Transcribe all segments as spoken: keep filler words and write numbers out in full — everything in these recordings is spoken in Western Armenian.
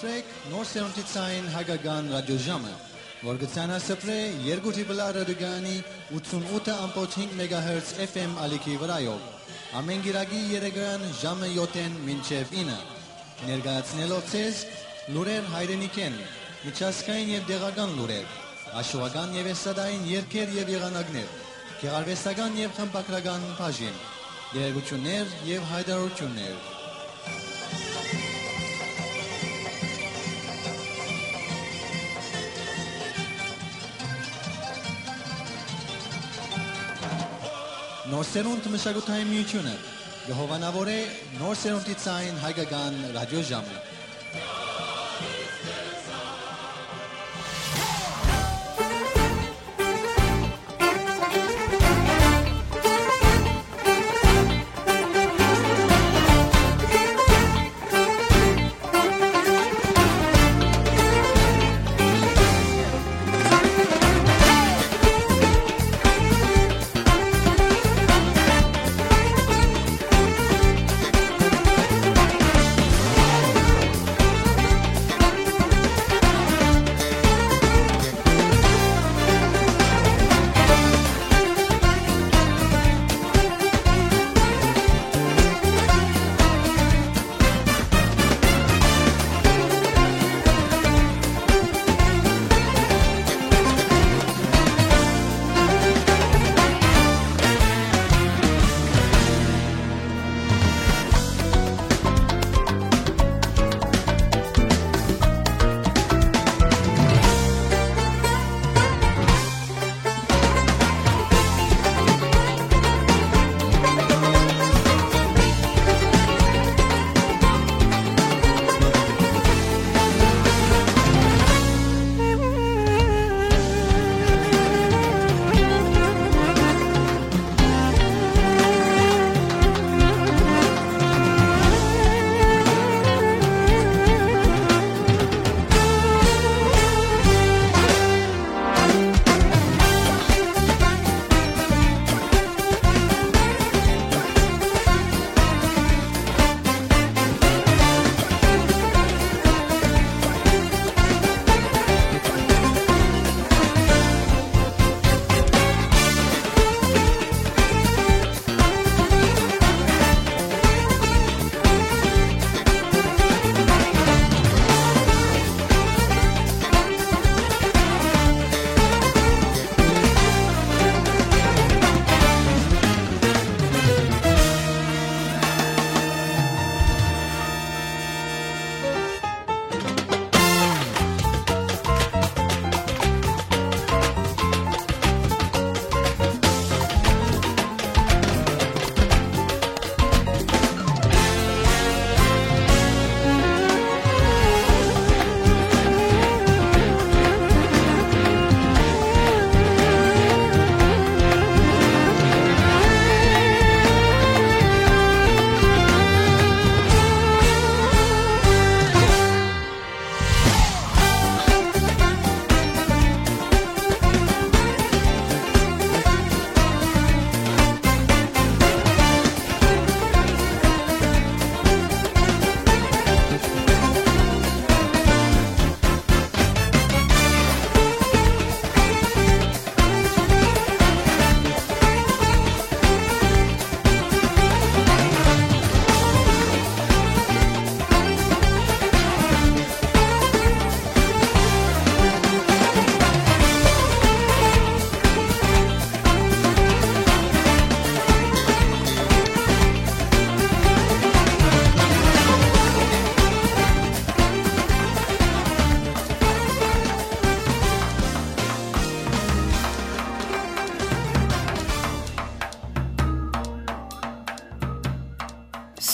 Նոր սերունդի ցային հայկական ռադիոժամը, որ կը ցանասփռէ երկու Triple R ռադիոկայանի ութսունութ ըմբոց հինգ մեգահերց F M ալիքի վրայով, ամէն կիրակի երեկոյեան ժամը յոթ մինչեւ ինը, ներկայացնելով ձեզ լուրեր հայրենիքէն, միջազգային եւ տեղական լուրեր, հաշուական եւ էստրադային երգեր եւ եղանակներ, գեղարուեստական եւ խմբագրական բաժին, տեղեկութիւններ եւ յայտարարութիւններ։ Նոր սերունդ մշակութային միութիւնը կը հովանաւորէ նոր սերունդի ցային հայկական ռադիոժամը։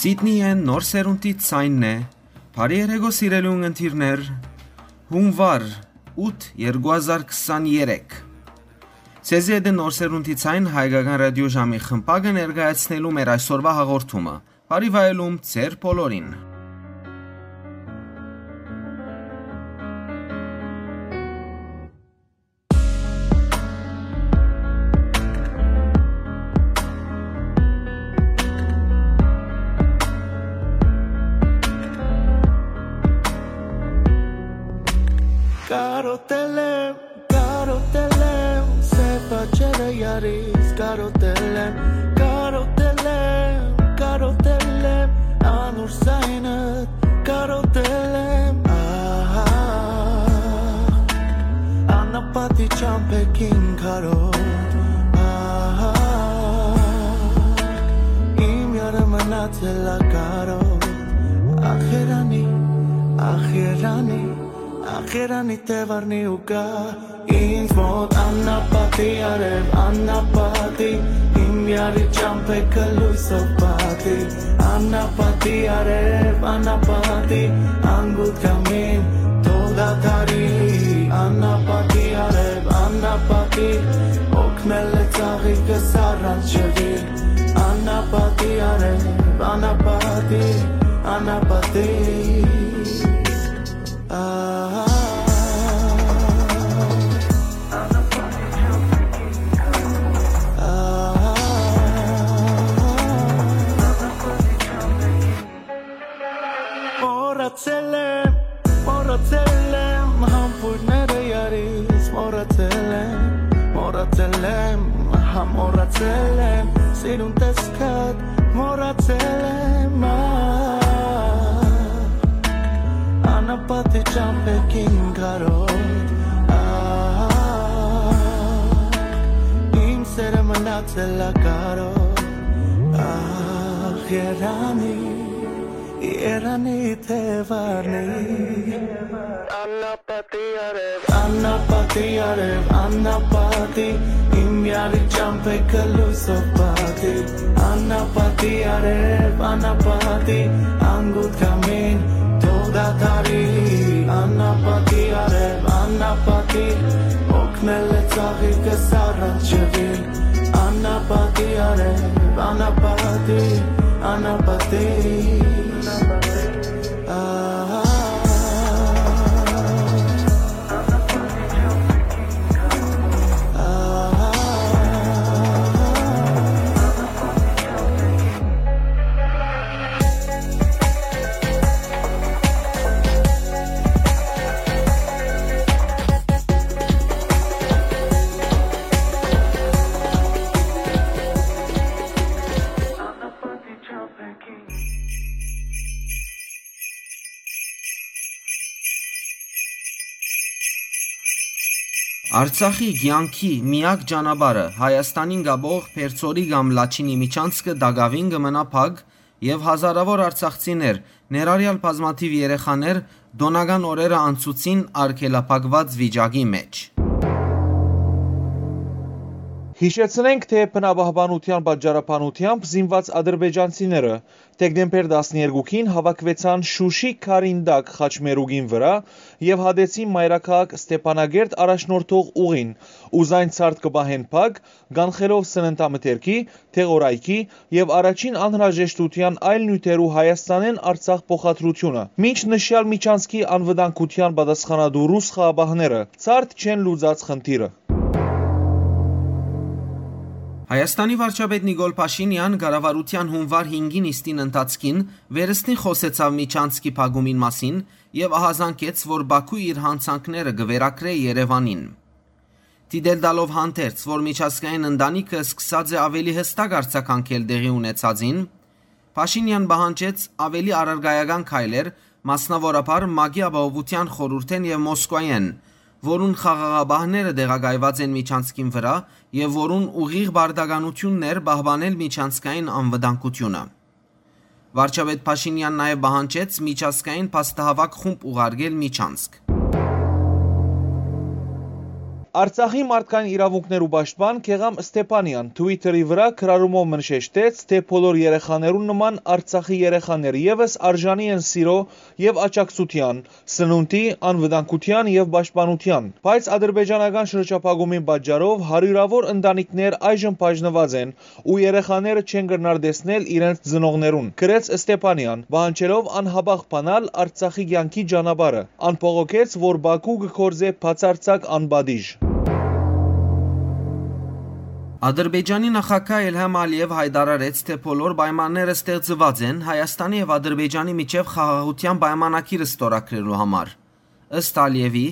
Սիդնիէն նոր սերունդի ցայնն է։ Բարի երեկո, սիրելի ունգընտիրներ, հունուար ութ, երկու հազար քսաներեք։ Ձեզի հետ է նոր սերունդի ցայն հայկական ռադիոժամի խմբակը ներկայացնելու մեր այսօրվա հաղորդումը։ Բարի վայելում ձեր բոլորին։ Կարոտել եմ, կարոտել եմ, սեփ աչերը յարից կարոտել եմ, կարոտել եմ, կարոտել եմ, անուր սայնը կարոտել եմ, ահա, անապատի ճամփեքին կարոտ, ահա, իմ յարը մնացել ա կարոտ, ախ երանի, ախ երանի, ախ երանի, թեւարնի ու գայ ինձ մօտ, անապատի արեւ, անապատի, իմ յարի ճամփեքը լոյսով պատի, անապատի արեւ, անապատի, անգութ կամին, թող դադարի, անապատի արեւ, անապատի, օգնել է ծաղիկս առանց ջրի, անապատի արեւ, անապատի, անապատի, ահա, ահա, մոռացել եմ, մոռացել եմ, համբույրները յարից մոռացել եմ, մոռացել եմ, հա, մոռացել եմ, սիրուն տեսքդ մոռացել եմ, ա, անապատի ճամփեքին կարոտ, ա, իմ սերը մնացել ա կարոտ, ախ երանի, երանի թեւարնի, անապատի արեւ, անապատի արեւ, անապատի, իմ յարի ճամփեքը լոյսով պատի, անապատի արեւ, անապատի, անգութ կամին, թող դադարի, անապատի արեւ, անապատի, օգնել է ծաղիկս առանց ջրի, անապատի արեւ, անապատի, անապատի, ահա, ահա, Արցախի կեանքի միակ ճանապարհը, Հայաստանին կապող Փերծորի կամ Լաչինի միջանցքը տակաւին կը մնայ փակ եւ հազարաւոր արցախցիներ, ներառյալ բազմաթիւ երեխաներ, տօնական օրերը անցուցին արգելափակուած վիճակի մէջ։ Յիշեցնենք, թէ բնապահպանութեան պատճառաբանութեամբ զինուած ադրբեջանցիները դեկտեմբեր տասներկուքին հաւաքուեցան Շուշի քարին տակ խաչմերուկին վրայ եւ հատեցին մայրաքաղաք Ստեփանագերդ առաջնորդող ուղին ու զայն ցարդ կը պահեն փակ, կանխելով սննդամթերքի, դեղորայքի եւ առաջին անհրաժեշտութեան այլ նիւթերու Հայաստանէն Արցախ փոխադրութիւնը, մինչ նշեալ միջանցքի անվտանգութեան պատասխանատու ռուս խաղապահները ցարդ չեն լուծած խնդիրը։ Հայաստանի վարչապետ Նիկոլ Փաշինեան կառավարութեան յունուար հինգին նիստին ընթացքին վերստին խօսեցաւ միջանցքի փակումին մասին եւ ահազանգեց, որ Բաքու իր յանցանքները կը վերագրէ Երեւանին։ Դիտել տալով հանդերձ, որ միջազգային ընտանիքը սկսած է ավելի յստակ արձագանքել տեղի ունեցածին, Փաշինեան պահանջեց ավելի առարկայական քայլեր, մասնաւորաբար ՄԱԿ-ի Ապահովութեան խորհուրդէն եւ Մոսկուայէն, որուն խաղաղապահները տեղակայուած են միջանցքին վրայ եւ որուն ուղիղ պարտականութիւնն էր պահպանել միջանցքային անվտանգութիւնը։ Վարչապետ Փաշինեան նաեւ պահանջեց միջազգային փաստահաւաք խումբ ուղարկել միջանցք։ Արցախի մարդկային իրաւունքներու պաշտպան Գեղամ Ստեփանեան Twitter-ի վրայ գրառումով մնշեշտեց, թէ բոլոր երեխաներուն նման Արցախի երեխաներ եւս արժանի են սիրոյ եւ աջակցութեան, սնունդի, անվտանգութեան եւ պաշտպանութեան։ Բայց ադրբեջանական շրջափակումին պատճառով հարիւրաւոր ընտանիքներ այժմ բաժնուած են ու երեխաները չեն կրնար տեսնել իրենց ծնողներուն, գրեց Ստեփանեան, պահանջելով անհապաղ բանալ Արցախի կեանքի ճանապարհը։ Ան բողոքեց, որ Բաքու կը գործէ բացարձակ անպատիժ։ Ադրբեջանի նախագահ Իլհամ Ալիեւ յայտարարեց, թէ բոլոր պայմանները ստեղծուած են Հայաստանի եւ Ադրբեջանի միջեւ խաղաղութեան պայմանագիր ստորագրելու համար։ Ըստ Ալիեւի,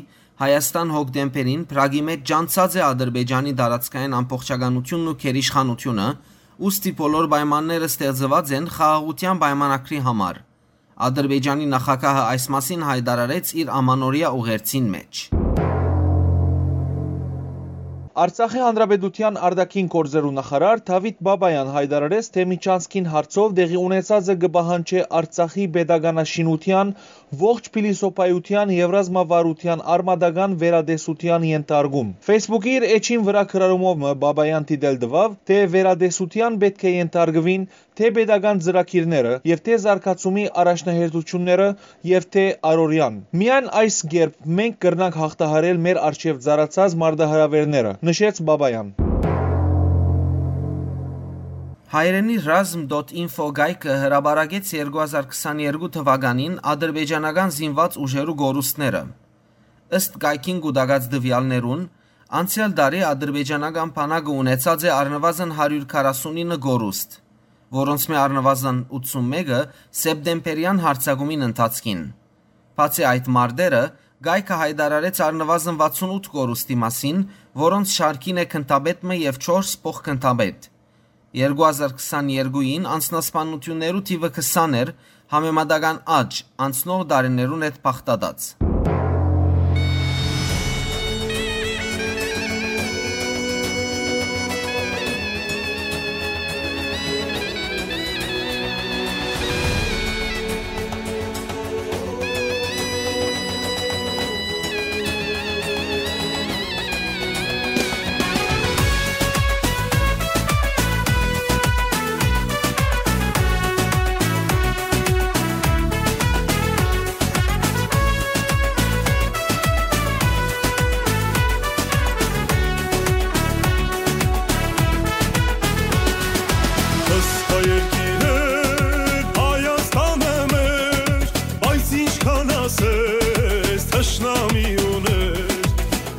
Հայաստան հոկտեմբերին Պրագի մէջ ճանչցած է Ադրբեջանի տարածքային ամբողջականութիւնն ու գերիշխանութիւնը, ուստի բոլոր պայմանները ստեղծուած են խաղաղութեան պայմանագրի համար։ Ադրբեջանի նախագահը այս մասին յայտարարեց իր ամանորեայ ուղերձին մէջ։ Արցախի Հանրապետութեան արտաքին գործերու նախարար Դավիթ Բաբայան յայտարարեց, թէ Միչանսկին հարցով տեղի ունեցածը կը պահանջէ Արցախի պետականաշինութեան, ողջ փիլիսոփայութեան եւ ռազմավարութեան արմատական վերատեսութեան ենթարկում։ Facebook-ի իր էջին վրայ գրառումով մը Բաբայան դիտել տուաւ, թէ վերատեսութեան պէտք է ենթարկուին թէ պետական ծրագիրները եւ թէ զարգացումի առաջնահերթությունները եւ թէ առօրեան։ Միայն այս կերպ մենք կրնանք յաղթահարել մեր առջեւ ծառացած մարտահրաւէրները, նշեց Բաբայան։ Հայերէնի ռազմ դոթ ինֆո կայքը հրապարակեց երկու հազար քսաներկու թուականին ադրբեջանական զինուած ուժերու կորուստները։ Ըստ կայքին կուտակած տուեալներուն, անցեալ տարի ադրբեջանական բանակը ունեցած է առնուազն հարիւր քառասունինը կորուստ, որոնցմէ առնուազն ութսունմէկը սեպտեմբերեան յարձակումին ընթացքին։ Բացի այդ մարտերը, կայքը յայտարարեց առնուազն վաթսունութ կորուստի մասին, որոնց շարքին է գնդապետ մը եւ չորս փոխգնդապետ։ Երկու հազար քսաներկուին անձնասպանութիւններու թիւը քսան էր, համեմատական աճ՝ անցնող տարիներուն հետ բաղդատած։ Ըստ երկիրը Հայաստանը մեր, բայց ինչքան ասես թշնամի ուներ,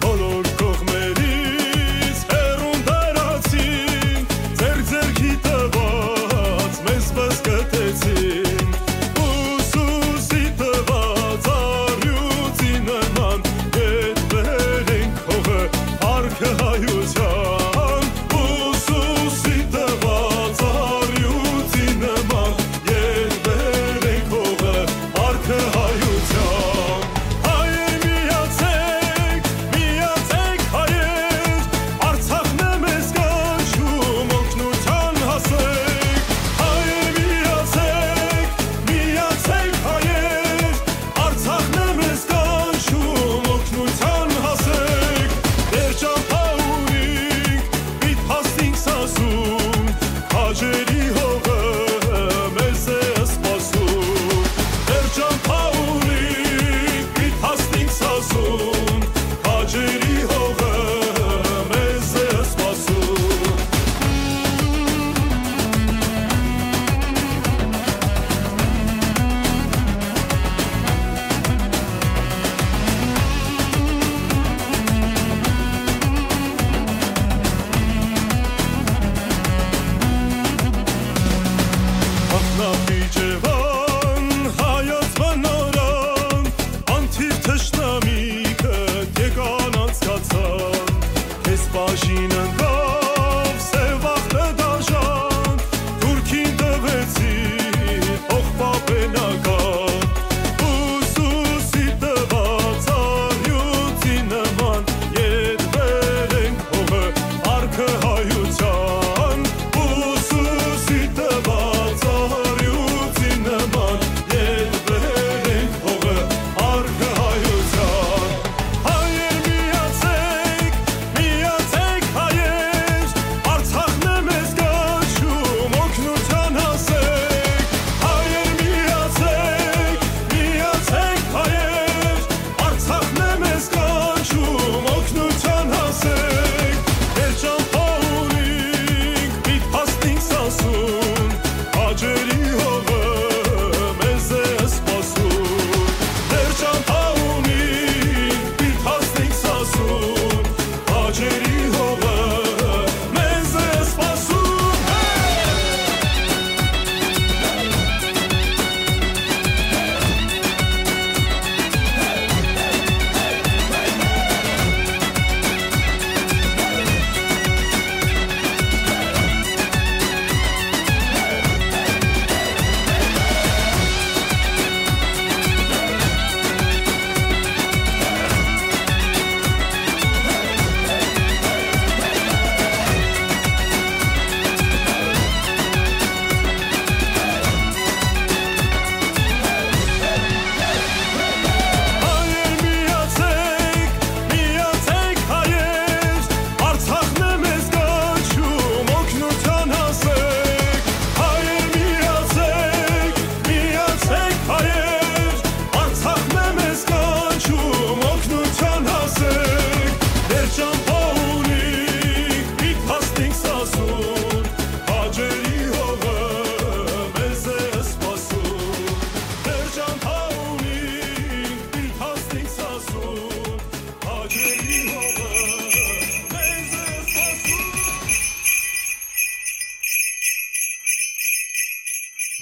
բոլոր կողմերից հեռուն տարածին, ձեր ձեռքի տված մեզ բզկտեցին, ուսուսի տված առյուծի նման ետ բերենք հողը, արկը հայության, ուսուսի տված առյուծի նման ետ բերենք հողը, արկը հայության։ Հայեր միացեք, միացեք հայեր, Արցախն է մեզ կանչում, օգնության հասեք։ Հայեր միացեք, միացեք հայեր, Արցախն է մեզ կանչում, օգնության հասեք։ Դեռ ճամփա ունինք, պիտ հասնինք Սասուն, քաջերի հողը մեզ է սպասում։ Դեռ ճամփա ունինք, պիտ հասնինք Սասուն, քաջերի հողը մեզ է սպասում։ Ախնապի Ջեվան, հայոց բնորան, անթիվ թշնամիքը եկան անցկացան, քեզ բաժին ընկավ սեւ ախտը դաժան, թուրքին տվեցի փոխպապենական, ուսուսի տված առյուծի նման, ետ բերենք հողը, արկը հայության, ուսուսի տված առյուծի նման, ետ բերենք հողը, արկը հայության։ Հայեր միացեք, միացեք հայ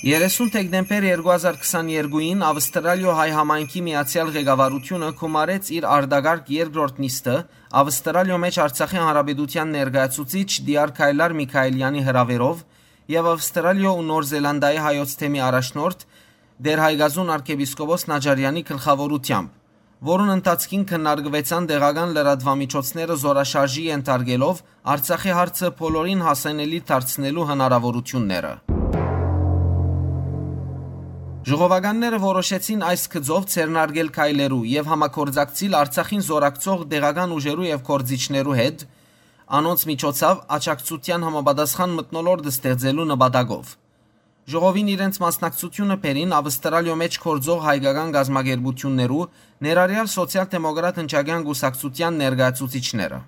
Երեսուն դեկտեմբեր երկու հազար քսաներկուին Ավստրալիոյ հայ համայնքի միացեալ ղեկավարութիւնը գումարեց իր արտակարգ երկրորդ նիստը Ավստրալիոյ մէջ Արցախի Հանրապետութեան ներկայացուցիչ Դիար Քայլար Միքայելյանի հրաւերով եւ Ավստրալիոյ ու Նոր Զելանդիայի հայոց թեմի առաջնորդ Տէր Հայկազուն արքեպիսկոպոս Նաճարեանի գլխաւորութեամբ, որուն ընթացքին քննարկուեցան տեղական լրատուամիջոցները զօրաշարժի ենթարկելով Արցախի հարցը բոլորին հասանելի դարձնելու հնարաւորութիւնները։ Ժողովականները որոշեցին այս գծով ձեռնարկել քայլերու եւ համագործակցիլ Արցախին զօրակցող տեղական ուժերու եւ գործիչներու հետ, անոնց միջոցով աջակցութեան համապատասխան մթնոլորտ ստեղծելու նպատակով։ Ժողովին իրենց մասնակցությունը բերին Ավստրալիոյ մէջ գործող հայկական կազմակերպութիւններու, ներառեալ Սոցիալ-դեմոկրատ ընչակեան կուսակցութեան ներկայացուցիչները։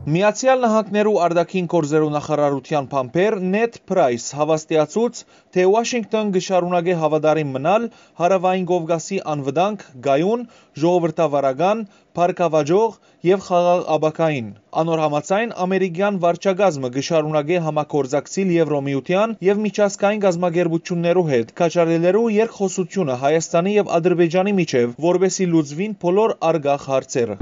Միացեալ Նահանգներու արտաքին գործերու նախարարութեան բանբեր Նեթ Փրայս հաւաստիացուց, թէ Ուաշինկտոն կը շարունակէ հաւատարիմ մնալ Հարաւային Կովկասի անվտանգ, կայուն, ժողովրդավարական, բարգաւաճող եւ խաղաղ ապագային։ Անոր համաձայն, ամերիկեան վարչակազմը կը շարունակէ համագործակցիլ Եվրոմիութեան եւ միջազգային կազմակերպութիւններու հետ, կաչառելերու երկխօսութիւնը Հայաստանի եւ Ադրբեջանի միջեւ, որպէսզի լուծուին բոլոր առկախ հարցերը։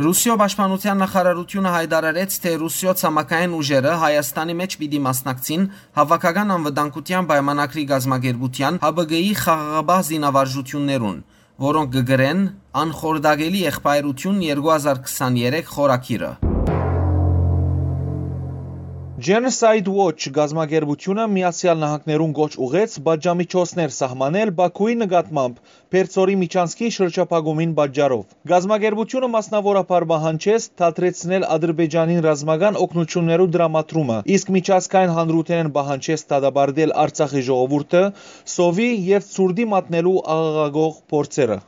Ռուսիոյ պաշտպանութեան նախարարութիւնը յայտարարեց, թէ Ռուսիոյ ցամաքային ուժերը Հայաստանի մէջ պիտի մասնակցին Հաւաքական անվտանգութեան պայմանագրի կազմակերպութեան՝ Հ Բ Կ-ի խաղաղապահ զինավարժութիւններուն, որոնք կը կրեն անխորտակելի եղբայրութիւն երկու հազար քսաներեք խորագիրը։ Genocide Watch կազմակերպութիւնը Միացեալ Նահանգներուն կոչ ուղղեց պատժամիջոցներ սահմանել Բաքուի նկատմամբ Պերձորի միջանցքի շրջափակումին պատճառով։ Կազմակերպութիւնը մասնաւորաբար պահանջեց դադրեցնել Ադրբեջանին ռազմական օգնութիւններու տրամադրումը, իսկ միջազգային հանրութենէն պահանջեց դատապարտել Արցախի ժողովուրդը սովի եւ ցուրտի մատնելու աղաղակող փորձերը։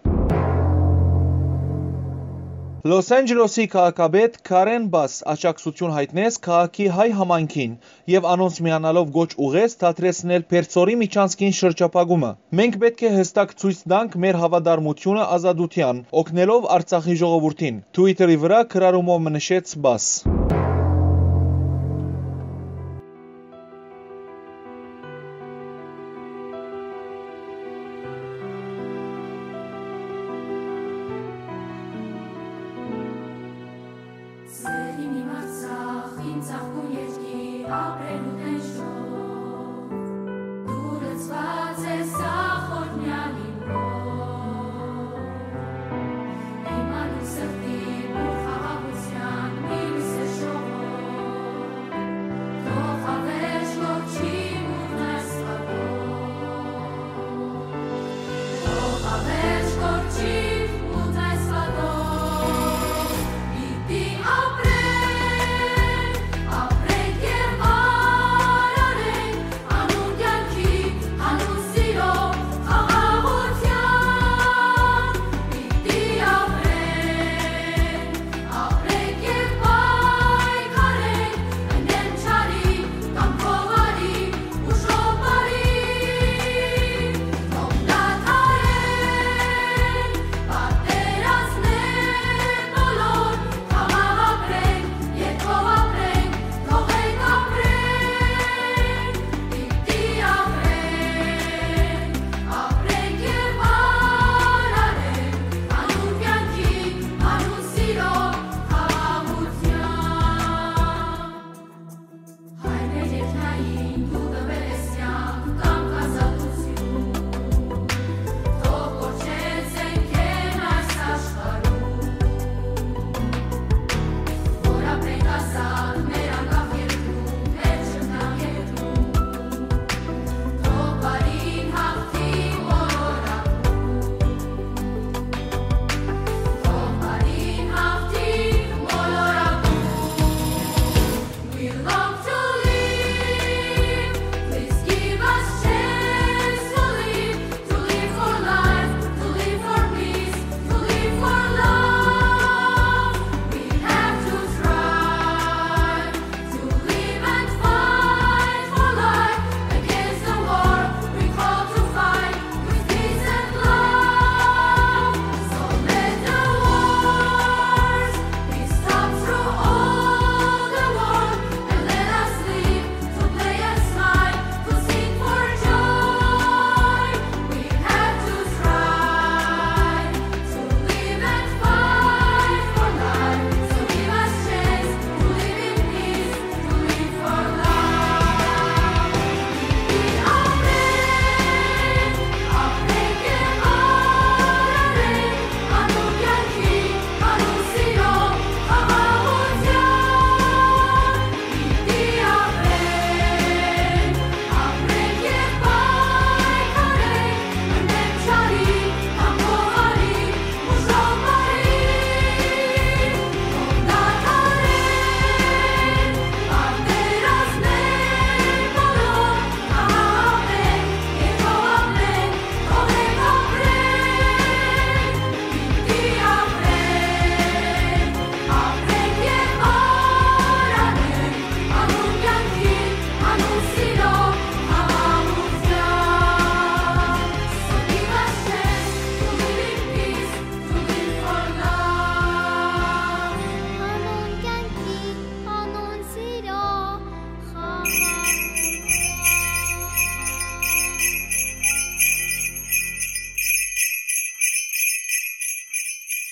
Լոս Անջելոսի քաղաքապետ Քարեն Բաս աջակցութիւն յայտնեց քաղաքի հայ համայնքին եւ անոնց միանալով կոչ ուղղեց դադրեցնել Պերձորի միջանցքին շրջափակումը։ «Մենք պէտք է յստակ ցոյց տանք մեր հաւատարմութիւնը ազատութեան, օգնելով Արցախի ժողովուրդին», Twitter-ի վրայ գրառումով մը նշեց Բաս։ Սեղին իմ Արցախ, իմ ծաղկուն երկիր, ապրելու տեժով, դու լցված ես ախորնյալ իմ հոր։ Իմ անուն սրտի բուռ խաղաղութեան, մինուսը շող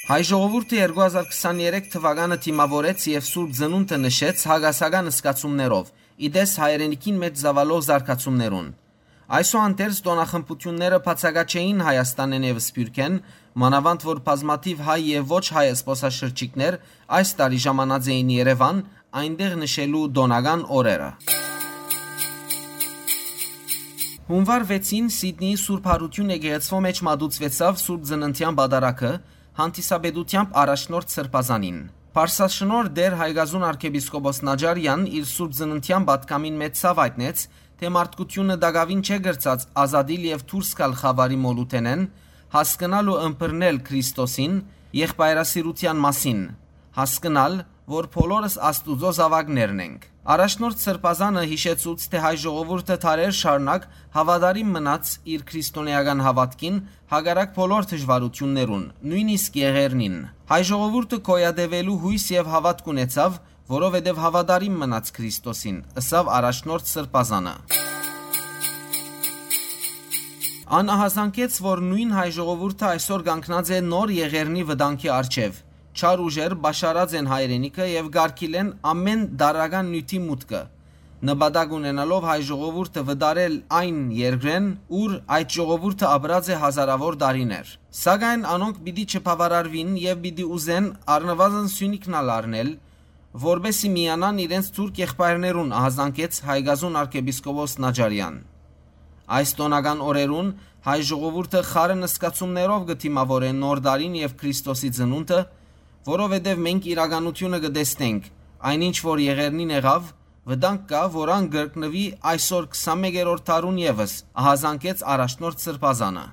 Հայ ժողովուրդը երկու հազար քսաներեք թուականը դիմաւորեց եւ Սուրբ Ծնունդը նշեց հակասական զգացումներով, ի տես հայրենիքին մէջ ծաւալող զարգացումներուն։ Այսուհանդերձ, տօնախմբութիւնները բացակայ չէին Հայաստանէն եւ Սփիւռքէն, մանաւանդ որ բազմաթիւ հայ եւ ոչ հայ զբօսաշրջիկներ այս տարի ժամանած էին Երեւան, այնտեղ նշելու տօնական օրերը։ Հունուար վեցին Սիդնիի Սուրբ Յարութիւն եկեղեցւոյ մէջ մատուցուեցաւ Սուրբ Ծննդեան պատարագը, հանդիսապետութեամբ առաջնորդ Սրբազանին։ Պարսաշնորհ Տէր Հայկազուն արքեպիսկոպոս Նաջարեան իր Սուրբ Ծննդեան պատգամին մէջ ցաւ յայտնեց, թէ մարդկութիւնը տակաւին չէ կրցած ազատիլ եւ դուրս գալ խաւարի մոլութենէն, հասկնալ ու ըմբռնել Քրիստոսին, եղբայրասիրութեան մասին, հասկնալ, որ բոլորս Աստուծոյ զաւակներն ենք։ Առաջնորդ Սրբազանը յիշեցուց, թէ հայ ժողովուրդը դարեր շարունակ հաւատարիմ մնաց իր քրիստոնէական հաւատքին, հակառակ բոլոր դժուարութիւններուն, նոյնիսկ եղեռնին։ Հայ ժողովուրդը գոյատեւելու յոյս եւ հաւատք ունեցաւ, որովհետեւ հաւատարիմ մնաց Քրիստոսին, ըսաւ առաջնորդ Սրբազանը։ Ան ահազանգեց, որ նոյն հայ ժողովուրդը այսօր կանգնած է նոր եղեռնի վտանգի առջեւ։ Չար ուժեր պաշարած են հայրենիքը եւ կարգիլեն ամէն տարրական նիւթի մուտքը, նպատակ ունենալով հայ ժողովուրդը վտարել այն երկրէն, ուր այդ ժողովուրդը ապրած է հազարաւոր տարիներ։ Սակայն անոնք պիտի չբաւարարուին եւ պիտի ուզեն առնուազն սիւնիքն ալ առնել, որպէս զի միանան իրենց թուրք եղբայրներուն, ահազանգեց Հայկազուն արքեպիսկոպոս Նաջարեան։ Այս տօնական օրերուն հայ ժողովուրդը խառն զգացումներով կը դիմաւորէ նոր տարին եւ Քրիստոսի ծնունդը, որովհետեւ մենք իրականութիւնը կը տեսնենք, այնինչ որ եղեռնին եղաւ, վտանգ կայ, որ ան կրկնուի այսօր քսանմեկերորդ դարուն եւս, ահազանգեց առաջնորդ Սրբազանը։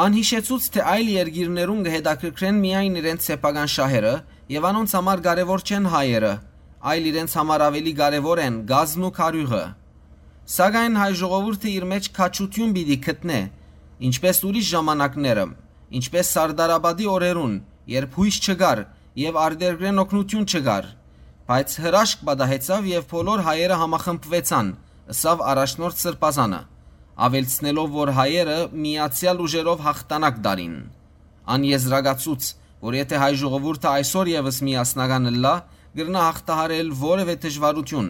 Ան յիշեցուց, թէ այլ երկիրներուն կը հետաքրքրեն միայն իրենց սեփական շահերը եւ անոնց համար կարեւոր չեն հայերը, այլ իրենց համար աւելի կարեւոր են կազն ու քարիւղը։ Սակայն հայ ժողովուրդը իր մէջ քաջութիւն պիտի գտնէ, ինչպէս ուրիշ ժամանակները, ինչպէս Սարդարապատի օրերուն, երբ յոյս չկար եւ արտերկրէն օգնութիւն չկար, բայց հրաշք պատահեցաւ եւ բոլոր հայերը համախմբուեցան, ըսաւ առաջնորդ Սրբազանը, աւելցնելով, որ հայերը միացեալ ուժերով յաղթանակ տալին։ Ան եզրակացուց, որ եթէ հայ ժողովուրդը այսօր եւս միասնական ըլլայ, կրնայ յաղթահարել որեւէ դժուարութիւն,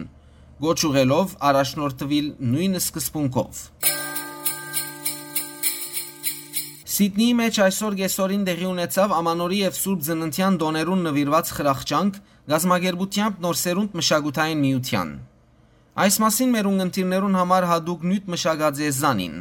կոչ ուղղելով առաջնորդուիլ նոյն սկզբունքով։ Սիդնիի մէջ այսօր կէսօրին տեղի ունեցաւ Ամանորի եւ Սուրբ Ծննդեան տօներուն նուիրուած խրախճանք, կազմակերպութեամբ Նոր Սերունդ մշակութային միութեան։ Այս մասին մեր ունգընտիրներուն համար յատուկ նիւթ մշակած է Զանին։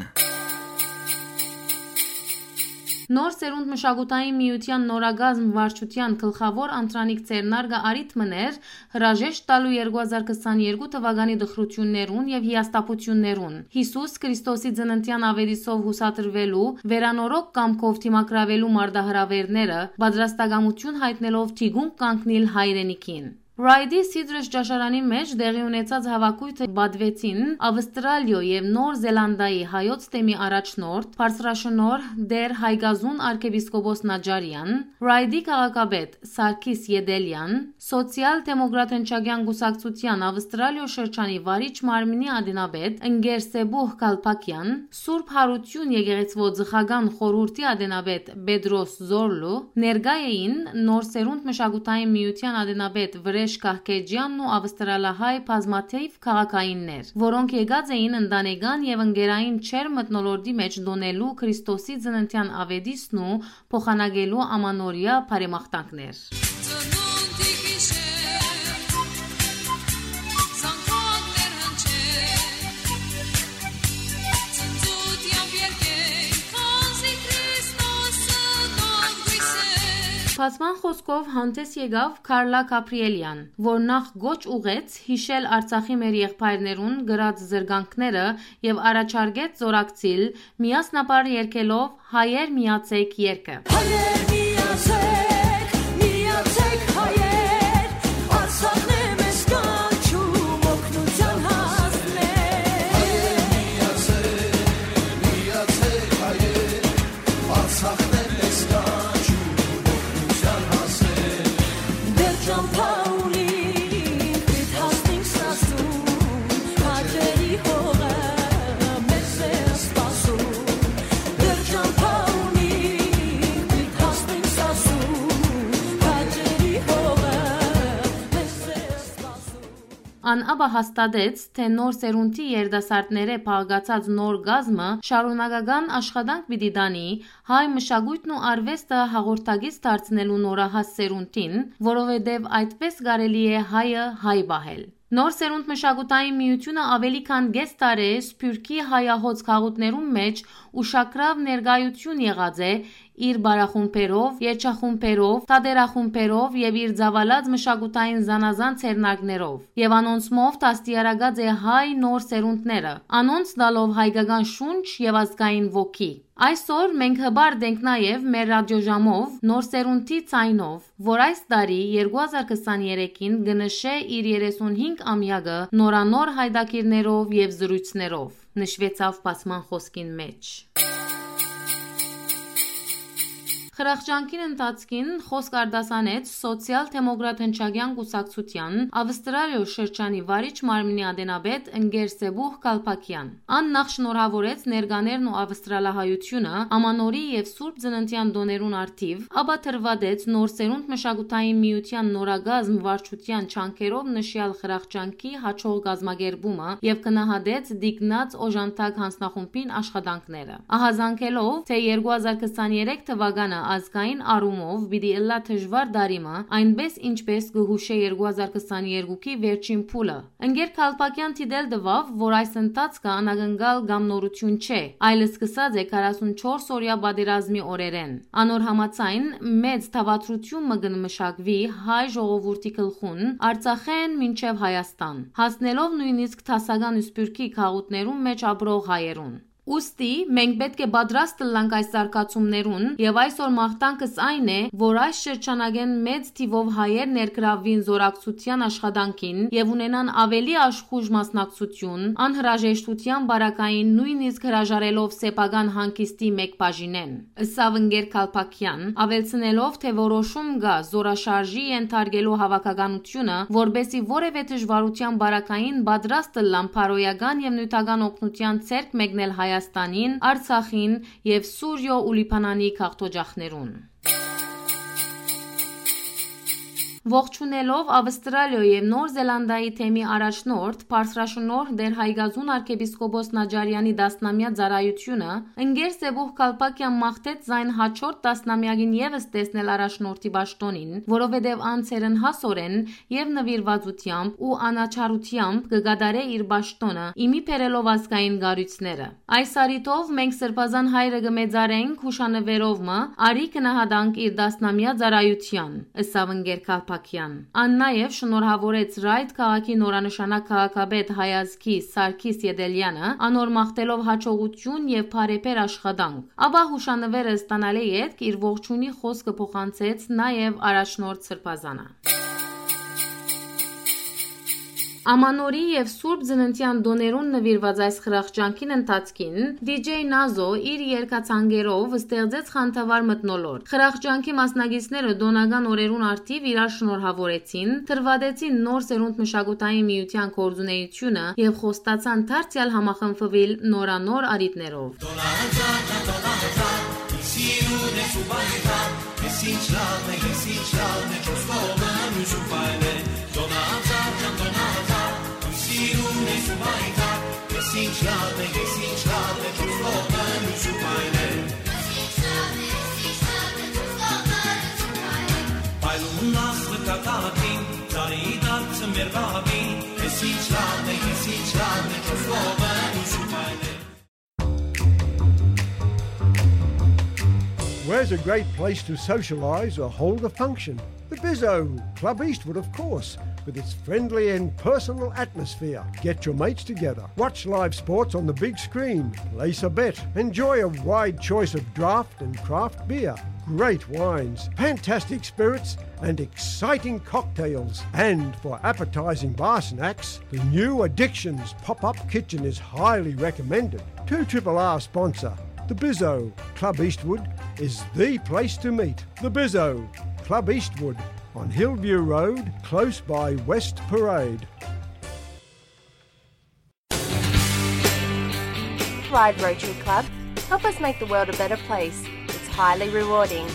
Նոր Սերունդ մշակութային միութեան նորակազմ վարչութեան գլխաւոր անդրանիկ ձեռնարկը առիթ մըն էր հրաժեշտ տալու երկու հազար քսաներկու թուականի տխրութիւններուն եւ հիասթափութիւններուն, Յիսուս Քրիստոսի ծննդեան աւետիսով յուսադրուելու, վերանորոգ կամքով դիմագրաւելու մարտահրաւէրները, պատրաստակամութիւն յայտնելով թիկունք կանգնիլ հայրենիքին։ Ռայդի Սիդրս ճաշարանին մէջ տեղի ունեցած հաւաքոյթը պատուեցին Ավստրալիոյ եւ Նոր Զելանդայի հայոց թեմի առաջնորդ, բարձրաշնորհ Տէր Հայկազուն արքեպիսկոպոս Նաջարեան, Ռայդի քաղաքապետ Սարգիս Յեդելեան, Սոցիալ-դեմոկրատ հնչակեան կուսակցութեան Ավստրալիոյ շրջանի վարիչ մարմինի ատենապետ Ընկեր Սեբուհ Գալփակեան, Սուրբ Յարութիւն եկեղեցւոյ ծխական խորհուրդի ատենապետ Պետրոս Զորլու, ներկայ էին Նոր Սերունդ մշակութային միութեան ատենապետ Վրեժ Կահքեջեանն ու ավստրալահայ բազմաթիւ քաղաքայիններ, որոնք եկած էին ընտանեկան եւ ընկերային չար մթնոլորտի մէջ տօնելու Քրիստոսի ծննդեան աւետիսն ու փոխանակելու ամանորեայ բարեմաղթանքներ։ Ծնունդի գիշեր, զանգակներ հնչեն, ծնծութեամբ երգեն, քանզի Քրիստոսը տան գույսեր։ Բացման խօսքով հանդէս եկաւ Քարլա Գաբրիելեան, որ նախ կոչ ուղղեց յիշել Արցախի մեր եղբայրներուն կրած զրկանքները եւ առաջարկեց զօրակցիլ միասնաբար երգելով «Հայեր միացեք» երգը։ Հայեր միացեք, միացեք հայեր, Արցախն է մեզ կանչում օգնության հասնել։ Հայեր միացեք, միացեք հայեր, Արցախն է մեզ կանչում օգնության հասնել։ Դեռ ճամփա ունի, պիտի հասնենք սաստում, քաջերի հողը մեզ է սպասում։ Դեռ ճամփա ունի, Ան ապա հաստատեց, թէ նոր սերունդի երիտասարդներէ փաղկացած նոր կազմը շարունակական աշխատանք պիտի տանի հայ մշակոյթն ու արուեստը հաղորդակից դարձնելու նորահաս սերունդին, որովհետեւ այդպէս կարելի է հայը հայ պահել։ Նոր սերունդ մշակութային միութիւնը աւելի քան կէս տարի է Սփիւռքի հայահոծ քաղաքներուն մէջ ուշագրաւ ներկայութիւն եղած է իր պարախումբերով, երգչախումբերով, թատերախումբերով եւ իր ծաւալած մշակութային զանազան ձեռնարկներով, եւ անոնցմով դաստիարակած է հայ նոր սերունդները, անոնց տալով հայկական շունչ եւ ազգային ոգի։ Այսօր մենք հպարտ ենք նաեւ մեր ռադիոժամով նոր սերունդի ձայնով, որ այս տարի երկու հազար քսաներեքին կը նշէ իր երեսունհինգ ամեակը նորանոր հայտագիրներով եւ զրոյցներով, նշուեցաւ բացման խօսքին մէջ։ Խրախճանքին ընթացքին խօսք արտասանեց Սոցիալ-դեմոկրատ հնչակեան կուսակցութեան Ավստրալիոյ շրջանի վարիչ մարմնի ատենապետ ընկեր Սեբուհ Կալպակեան։ Ան նախ շնորհաւորեց ներկաներն ու ավստրալահայութիւնը Ամանորի եւ Սուրբ Ծննդեան տօներուն առթիւ, ապա դրուատեց նոր սերունդ մշակութային միութեան նորակազմ վարչութեան ջանքերով նշեալ խրախճանքի յաջող կազմակերպումը եւ գնահատեց տիկնած օժանդակ յանձնախումբին աշխատանքները։ Ահազանգելով, թէ երկու հազար քսաներեք թուականը ազգային առումով պիտի ըլլայ դժուար տարի մը, այնպէս ինչպէս կը յուշէ երկու հազար քսաներկուքի վերջին փուլը։ Ընկեր Քալպակեան դիտել տուաւ, որ այս ընթացքը անակնկալ կամ նորութիւն չէ, այլ սկսած է քառասունչորս օրեայ պատերազմի օրերէն։ Անոր համաձայն, մեծ դաւադրութիւն մը կը մշակուի հայ ժողովուրդի գլխուն, Արցախէն մինչեւ Հայաստան, հասնելով նոյնիսկ դասական սփիւռքի գաղութներուն մէջ ապրող հայերուն։ Ուստի մենք պէտք է պատրաստ ըլլանք այս զարգացումներուն, եւ այսօր մաղթանքս այն է, որ այս շրջանակէն մեծ թիւով հայեր ներգրավուին զօրակցութեան աշխատանքին եւ ունենան աւելի աշխուժ մասնակցութիւն, անհրաժեշտութեան պարագային նոյնիսկ հրաժարելով սեփական հանգիստի մէկ բաժինէն, ըսաւ ընկեր Քալպակեան, աւելցնելով, թէ որոշում կայ զօրաշարժի ենթարկելու հաւաքականութիւնը, որպէսզի որեւէ դժուարութեան պարագային պատրաստ ըլլան բարոյական եւ նիւթական օգնութեան ձեռք մեկնել Հայաստանին, Արցախին եւ Սուրիոյ ու Լիբանանի գաղթօջախներուն։ Ողջունելով Ավստրալիոյ եւ Նոր Զելանդիայի թեմի առաջնորդ, բարձրաշնորհ Տէր Հայկազուն արքեպիսկոպոս Նաճարեանի տասնամեայ ծառայութիւնը, ընկեր Սեբուհ Կալպակեան մաղթեց զայն յաջորդ տասնամեակին եւս տեսնել առաջնորդի պաշտօնին, որովհետեւ ան ցերնհասօրէն եւ նուիրուածութեամբ ու անաչառութեամբ կը կատարէ իր պաշտօնը, ի մի բերելով ազգային կառոյցները։ Այս առիթով մենք Սրբազան Հայրը կը մեծարենք յուշանուերով մը, արի գնահատանք իր տասնամեայ ծառայութեան, ըսաւ ընկեր Քալպակեան։ Ան նաեւ շնորհաւորեց Ռայթ քաղաքի նորանշանակ քաղաքապետ հայազգի Սարգիս Ետելեանը, անոր մաղթելով յաջողութիւն եւ բարեբեր աշխատանք։ Ապա յուշանուերը ստանալէ ետք իր ողջունի խօսքը փոխանցեց նաեւ առաջնորդ Սրբազանը։ Ամանորի եւ Սուրբ Ծննդեան տօներուն նուիրուած այս խրախճանքին ընթացքին դի ջեյ Նազո իր երգացանկերով ստեղծեց խանդավառ մթնոլորտ։ Խրախճանքի մասնակիցները տօնական օրերուն առթիւ իրար շնորհաւորեցին, դրուատեցին նոր սերունդ մշակութային միութեան գործունեութիւնը եւ խոստացան դարձեալ համախմբուիլ նորանոր առիթներով։ Դոնալդ, Դոնալդ, սիրուն ես ու պայքար, ես ինչ լավ է, ես ինչ լավ է, չոս կողմը մյուս ու պայլ է։ Դոնալդ, Դոնալդ, սիրուն ես ու պայքար, ես ինչ լավ է, ես ինչ լավ է, չոս կողմը մյուս ու պայլ է։ Պայլուն աստղը կատակին, ծառի դարձը մեր բաբին, ես ինչ լավ է, ես ինչ լավ է, չոս կողմը մյուս ու պայլ է։ Where's a great place to socialise or hold a function? The Bizzo, Club Eastwood, of course, with its friendly and personal atmosphere. Get your mates together, watch live sports on the big screen, place a bet, enjoy a wide choice of draft and craft beer, great wines, fantastic spirits, and exciting cocktails. And for appetising bar snacks, the new Addictions pop-up kitchen is highly recommended. Two Triple R sponsor, the Bizzo, Club Eastwood, is the place to meet. The Bizzo, Club Eastwood, on Hillview Road, close by West Parade. Thrive Rotary Club. Help us make the world a better place. It's highly rewarding.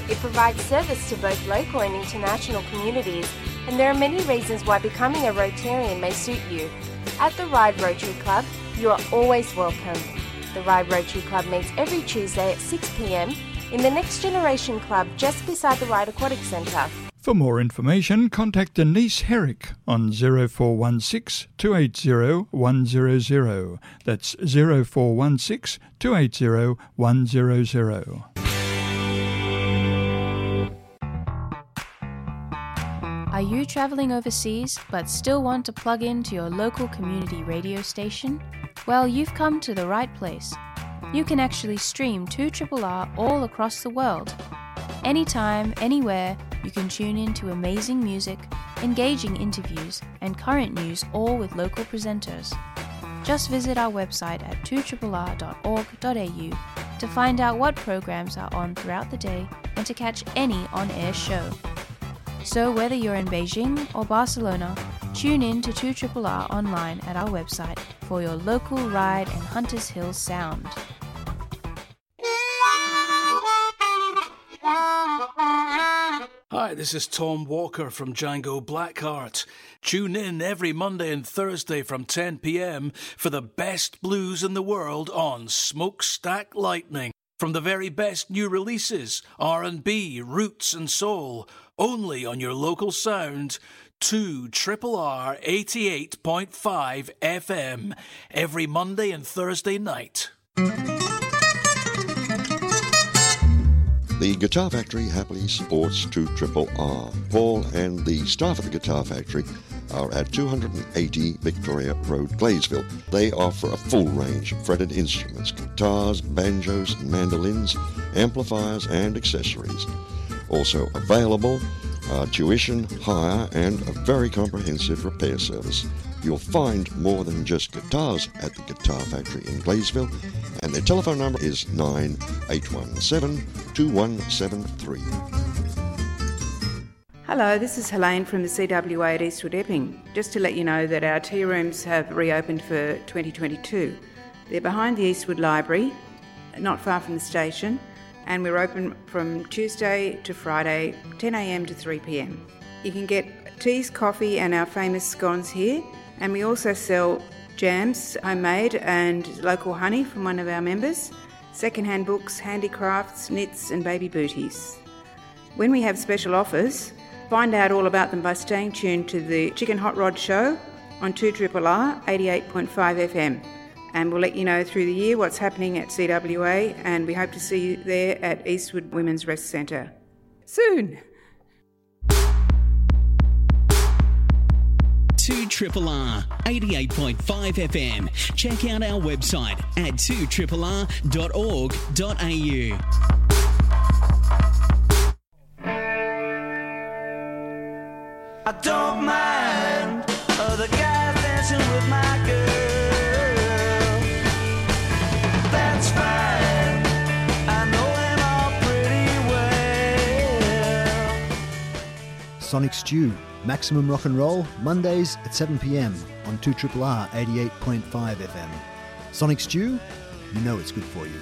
It provides service to both local and international communities And there are many reasons why becoming a Rotarian may suit you. At the Ryde Rotary Club, you are always welcome. The Ryde Rotary Club meets every Tuesday at six p.m. in the Next Generation Club just beside the Ryde Aquatic Centre. For more information, contact Denise Herrick on zero four one six, two eight zero, one zero zero. That's zero four one six, two eight zero, one zero zero. Are you traveling overseas but still want to plug in to your local community radio station? Well, you've come to the right place. You can actually stream two triple R all across the world. Anytime, anywhere, you can tune in to amazing music, engaging interviews, and current news, all with local presenters. Just visit our website at two triple R dot org dot A U to find out what programs are on throughout the day and to catch any on-air show. So whether you're in Beijing or Barcelona, tune in to two triple R online at our website for your local Ryde and Hunters Hill sound. Hi, this is Tom Walker from Django Blackheart. Tune in every Monday and Thursday from ten p.m. for the best blues in the world on Smokestack Lightning. From the very best new releases, R and B, roots and soul, only on your local sound, two triple R eighty-eight point five F M, every Monday and Thursday night. The Guitar Factory happily supports two triple R. Paul and the staff at the Guitar Factory are at two hundred and eighty Victoria Road, Gleysville. They offer a full range of fretted instruments, guitars, banjos, mandolins, amplifiers, and accessories. Also available are tuition, hire, and a very comprehensive repair service. You'll find more than just guitars at the Guitar Factory in Gleysville, and their telephone number is nine eight one seven, two one seven three. Hello, this is Helene from the C W A at Eastwood Epping. Just to let you know that our tea rooms have reopened for twenty twenty-two. They're behind the Eastwood Library, not far from the station, and we're open from Tuesday to Friday, ten a.m. to three p.m. You can get teas, coffee, and our famous scones here, and we also sell jams, homemade and local honey from one of our members, secondhand books, handicrafts, knits, and baby booties. When we have special offers, find out all about them by staying tuned to the Chicken Hot Rod Show on two triple R eighty-eight point five F M. And we'll let you know through the year what's happening at C W A, and we hope to see you there at Eastwood Women's Rest Centre soon. Two triple R, eighty-eight point five F M. Check out our website at two triple R dot org dot A U. I don't mind other guys dancing with my girl. That's fine. I know them all pretty well. Sonic Stew, maximum rock and roll, Mondays at seven p.m. on two triple R eighty-eight point five F M. Sonic Stew, you know it's good for you.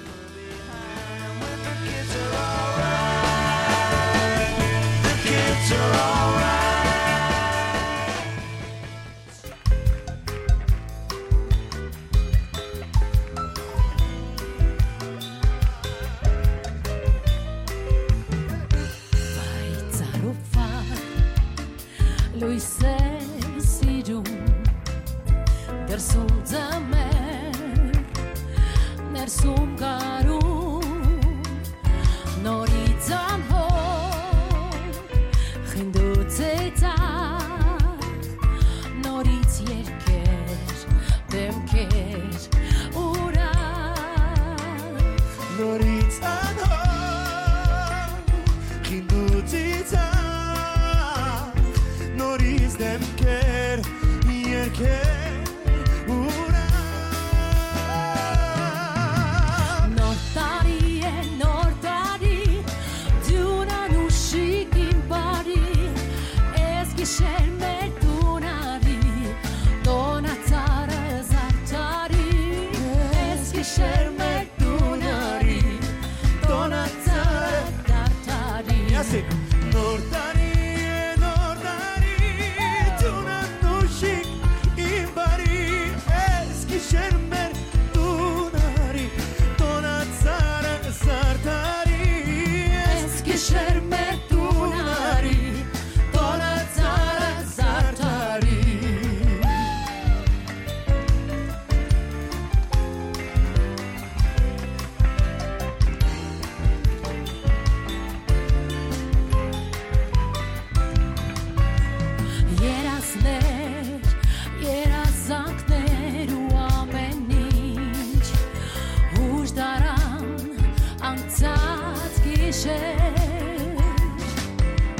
Լոյսեր սիրում, դրսում ձմեր, ներսում գարուն, նորից անհոտ, խինդու ծեծակ, նորից երկեր, դեմքեր, ուրախ, նորից անհոտ, խինդու ծիծաղ, նորից դեմքեր, երկեր, ուրախ։ Նոր տարի է, նոր տարի, դուն անուշիկ իմ բարի, ես գիշեր մեր տուն արի, տոնածառը զարդարի, ես գիշեր մեր տուն արի, տոնածառը զարդարի։ Yes, it. Նոր տարի է, նոր տարի,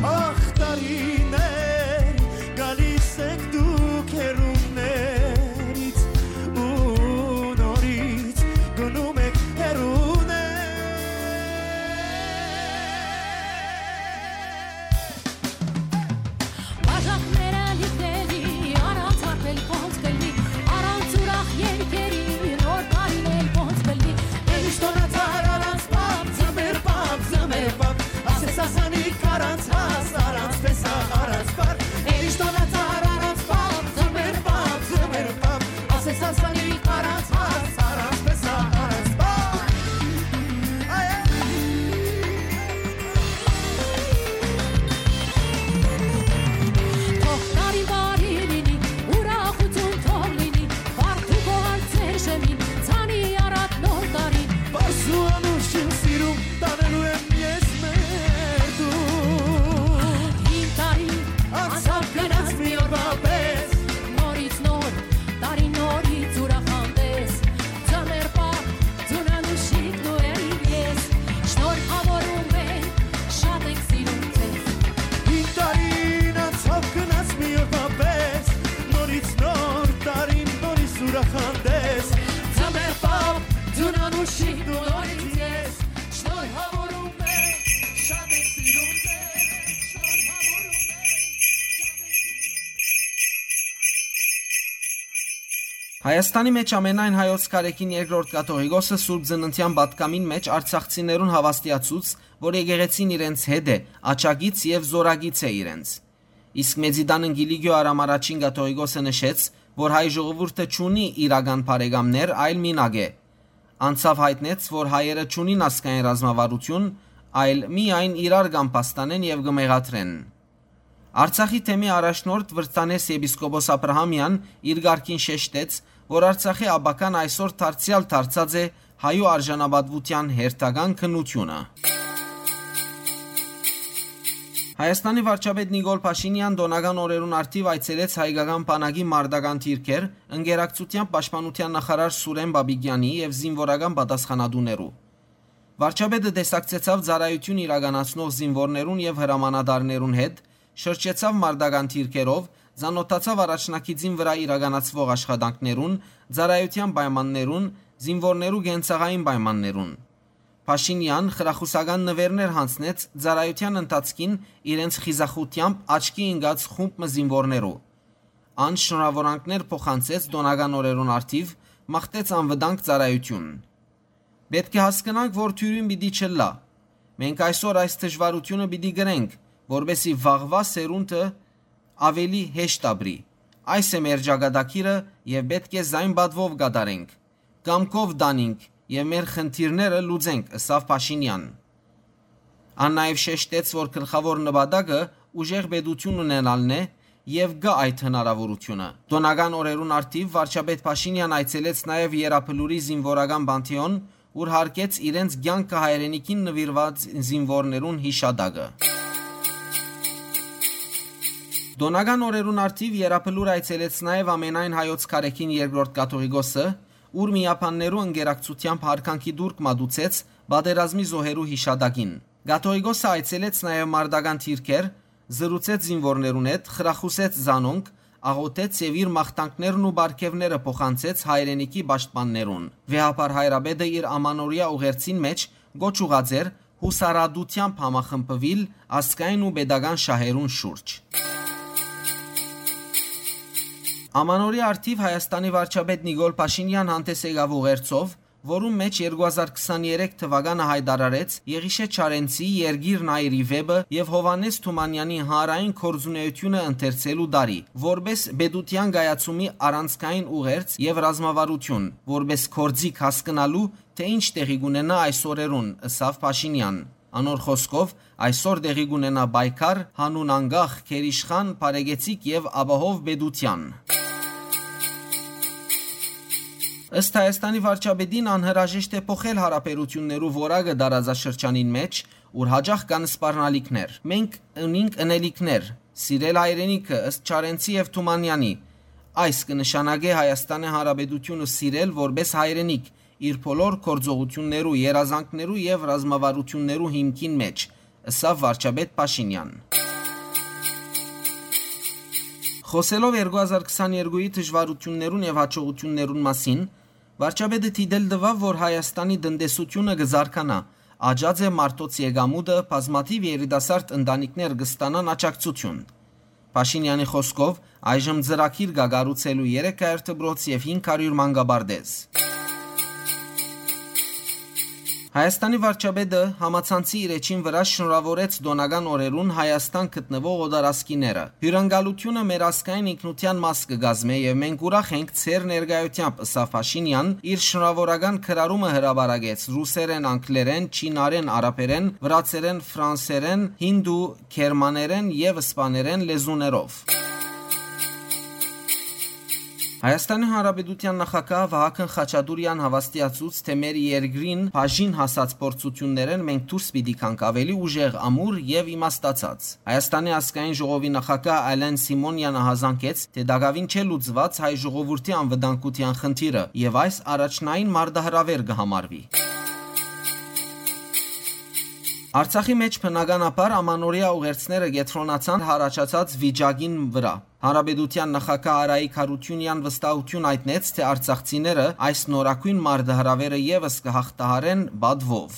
Ախ, տարիներ, գալիս եք դուք հեռուներից ու նորից գնում եք հեռուներ։ Բաժակները լիքելի, առանց հարբել ոնց կլի, առանց ուրախ երկերի, նոր տարին էլ ոնց կլի։ Էլիշտոնը ծառ առանց պապ, ձմեր պապ, ձմեր պապ, ասես ասանիկ առանց հաս, առանց տեսա, առանց պար։ Էլիշտոնը ծառ առանց պապ, ձմեր պապ, ձմեր պապ, ասես ասանիկ առանց հաս, առանց տեսա, առանց պար։ Այ, այ։ Թող տարին բարի լինի, ուրախություն թող լինի, բարդ ու գոհար ձեր շեմին, ցանի առատ նոր տարին։ Պարզ ու անուշ իմ սիրում, տանելու եմ ես մեր դու։ Հին տարի անցավ գնաց մի օրվա պես, նորից նոր տարի, նորից ուրախ հանդես, ձմեր պապ, ձուն անուշիկ նորերին ես, շնորհավորում ենք, շատ ենք սիրում ձեզ։ Հին տարին անցավ գնաց մի օրվա պես, նորից նոր տարին, նորից ուրախ հանդես, ձմեր պապ, ձուն անուշիկ նորից ես, շնորհավորում ենք, շատ ենք սիրում ձեզ, շնորհավորում ենք, շատ ենք սիրում ձեզ։ Հայաստանի մէջ ամենայն հայոց կարեքին երկրորդ կաթողիկոսը Սուրբ Ծննդեան պատգամին մէջ արցախցիներուն հաւաստիացուց, որ եկեղեցին իրենց հետ է, աջակից եւ զօրակից է իրենց։ Իսկ Մեծիդան Անգիլիգիո Արամ Առաջին կաթողիկոսը նշեց, որ հայ ժողովուրդը չունի իրական բարեկամներ, այլ մինակ է։ Անցաւ յայտնեց, որ հայերը չունին ազգային ռազմավարություն, այլ միայն իրար կամբաստանեն եւ կը մեղադրեն։ Արցախի թեմի առաջնորդ Վրտանես եպիսկոպոս Աբրահամեան իր կարգին շեշտեց, որ Արցախի ապագան այսօր դարձեալ դարձած է հայու արժանապատուության հերթական քննությունը։ Հայաստանի վարչապետ Նիկոլ Փաշինեան տօնական օրերուն առթիւ այցելեց հայկական բանակի մարտական դիրքեր, ընկերակցութեամբ պաշտպանության նախարար Սուրեն Բաբիկեանի եւ զինուորական պատասխանատուներու։ Վարչապետը տեսակցեցաւ ծառայութիւն իրականացնող զինուորներուն եւ հրամանատարներուն հետ, շրջեցաւ մարտական դիրքերով, ծանօթացաւ առաջնագիծին վրայ իրականացուող աշխատանքներուն, ծառայութեան պայմաններուն, զինուորներու կենցաղային պայմաններուն։ Փաշինեան խրախուսական նուէրներ յանձնեց ծառայութեան ընթացքին իրենց խիզախութեամբ աչքի ինկած խումբ մը զինուորներու։ Ան շնորհաւորանքներ փոխանցեց տօնական օրերուն առթիւ, մաղթեց անվտանգ ծառայութիւն։ Պէտք է հասկնանք, որ թիւրին պիտի չըլլայ։ Մենք այսօր այս դժուարութիւնը պիտի կրենք, որպէսզի վաղուայ սերունդը աւելի հեշտ ապրի։ Այս է մեր ճակատագիրը եւ պէտք է զայն պատուով կատարենք, կամքով տանինք եւ մեր խնդիրները լուծենք, ըսաւ Փաշինեան։ Ան նաեւ շեշտեց, որ գլխաւոր նպատակը ուժեղ պետութիւն ունենալն է եւ կայ այդ հնարաւորութիւնը։ Տօնական օրերուն առթիւ վարչապետ Փաշինեան այցելեց նաեւ Եռաբլուրի զինուորական պանթէոն, ուր յարգեց իրենց կեանքը հայրենիքին նուիրուած զինուորներուն յիշատակը։ Տօնական օրերուն առթիւ Եռաբլուր այցելեց նաեւ ամենայն հայոց կարեքին երկրորդ կաթողիկոսը, ուր միաբաններու ընկերակցութեամբ յարգանքի տուրք մատուցեց պատերազմի զոհերու յիշատակին։ Կաթողիկոսը այցելեց նաեւ մարտական դիրքեր, զրուցեց զինուորներուն հետ, խրախուսեց զանոնք, աղօթեց եւ իր մաղթանքներն ու պարգեւները փոխանցեց հայրենիքի պաշտպաններուն։ Վեհափառ հայրապետը իր ամանորեայ ուղերձին մէջ կոչ ուղղած էր յուսառատութեամբ համախմբուիլ ազգային ու պետական շահերուն շուրջ։ Ամանորի առթիւ Հայաստանի վարչապետ Նիկոլ Փաշինեան հանդես եկաւ ուղերձով, որուն մէջ երկու հազար քսաներեք թուականը յայտարարեց Եղիշէ Չարենցի «Երկիրն այր» ի վէպը եւ Յովհաննէս Թումանեանի հանրային գործունեութիւնը ընթերցելու տարի, որպէս պետութեան կայացումի առանցքային ուղերձ եւ ռազմավարութիւն, որպէս գործիք հասկնալու, թէ ինչ տեղի կունենայ այս օրերուն, ըսաւ Փաշինեան։ Անոր խօսքով, այսօր տեղի կունենայ պայքար յանուն անկախ, գերիշխան, բարեկեցիկ եւ ապահով պետութեան։ Ըստ Հայաստանի վարչապետին, անհրաժեշտ է փոխել յարաբերութիւններու որակը տարածաշրջանին մէջ, ուր յաճախ կան սպառնալիքներ։ «Մենք ունինք ընելիքներ, սիրել հայրենիքը, ըստ Չարենցի եւ Թումանեանի։ Այս կը նշանակէ Հայաստանի Հանրապետութիւնը սիրել որպէս հայրենիք իր բոլոր գործողութիւններու, երազանքներու եւ ռազմավարութիւններու հիմքին մէջ, ըսաւ վարչապետ Փաշինեան։ Խօսելով երկու հազար քսաներկուի դժուարութիւններուն եւ յաջողութիւններուն մասին, վարչապետը դիտել տուաւ, որ Հայաստանի տնտեսութիւնը կը զարգանայ, աճած է մարդոց եկամուտը, բազմաթիւ երիտասարդ ընտանիքներ կը ստանան աջակցութիւն։ Փաշինեանի խօսքով, այժմ ծրագիր կայ կառուցելու երեք հարիւր դպրոց եւ հինգ հարիւր մանկապարտէզ։ Հայաստանի վարչապետը համացանցի իր էջին վրայ շնորհաւորեց տօնական օրերուն Հայաստան գտնուող օտարազգիները։ Հիւրընկալութիւնը մեր ազգային ինքնութեան մաս կը կազմէ եւ մենք ուրախ ենք ձեր ներկայութեամբ, ըսաւ Փաշինեան, իր շնորհաւորական գրառումը հրապարակեց ռուսերէն, անգլերէն, չինարէն, արաբերէն, վրացերէն, ֆրանսերէն, հինդու, գերմաներէն եւ սպաներէն լեզուներով։ Հայաստանի Հանրապետութեան նախագահ Վահագն Խաչատուրեան հաւաստիացուց, թէ մեր երկրին բաժին հասած փորձութիւններէն մենք դուրս պիտի գանք ավելի ուժեղ, ամուր եւ իմաստացած։ Հայաստանի ազգային ժողովի նախագահ Ալեն Սիմոնեան ահազանգեց, թէ տակաւին չէ լուծուած հայ ժողովուրդի անվտանգութեան խնդիրը եւ այս առաջնային մարտահրաւեր կը համարուի։ Արցախի մէջ բնականաբար ամանորեայ ուղերձները կեդրոնացան յառաջացած վիճակին վրայ։ Հանրապետութեան նախագահ Արայիկ Յարութիւնեան վստահութիւն յայտնեց, թէ արցախցիները այս նորագոյն մարտահրաւերը եւս կը յաղթահարեն պատուով։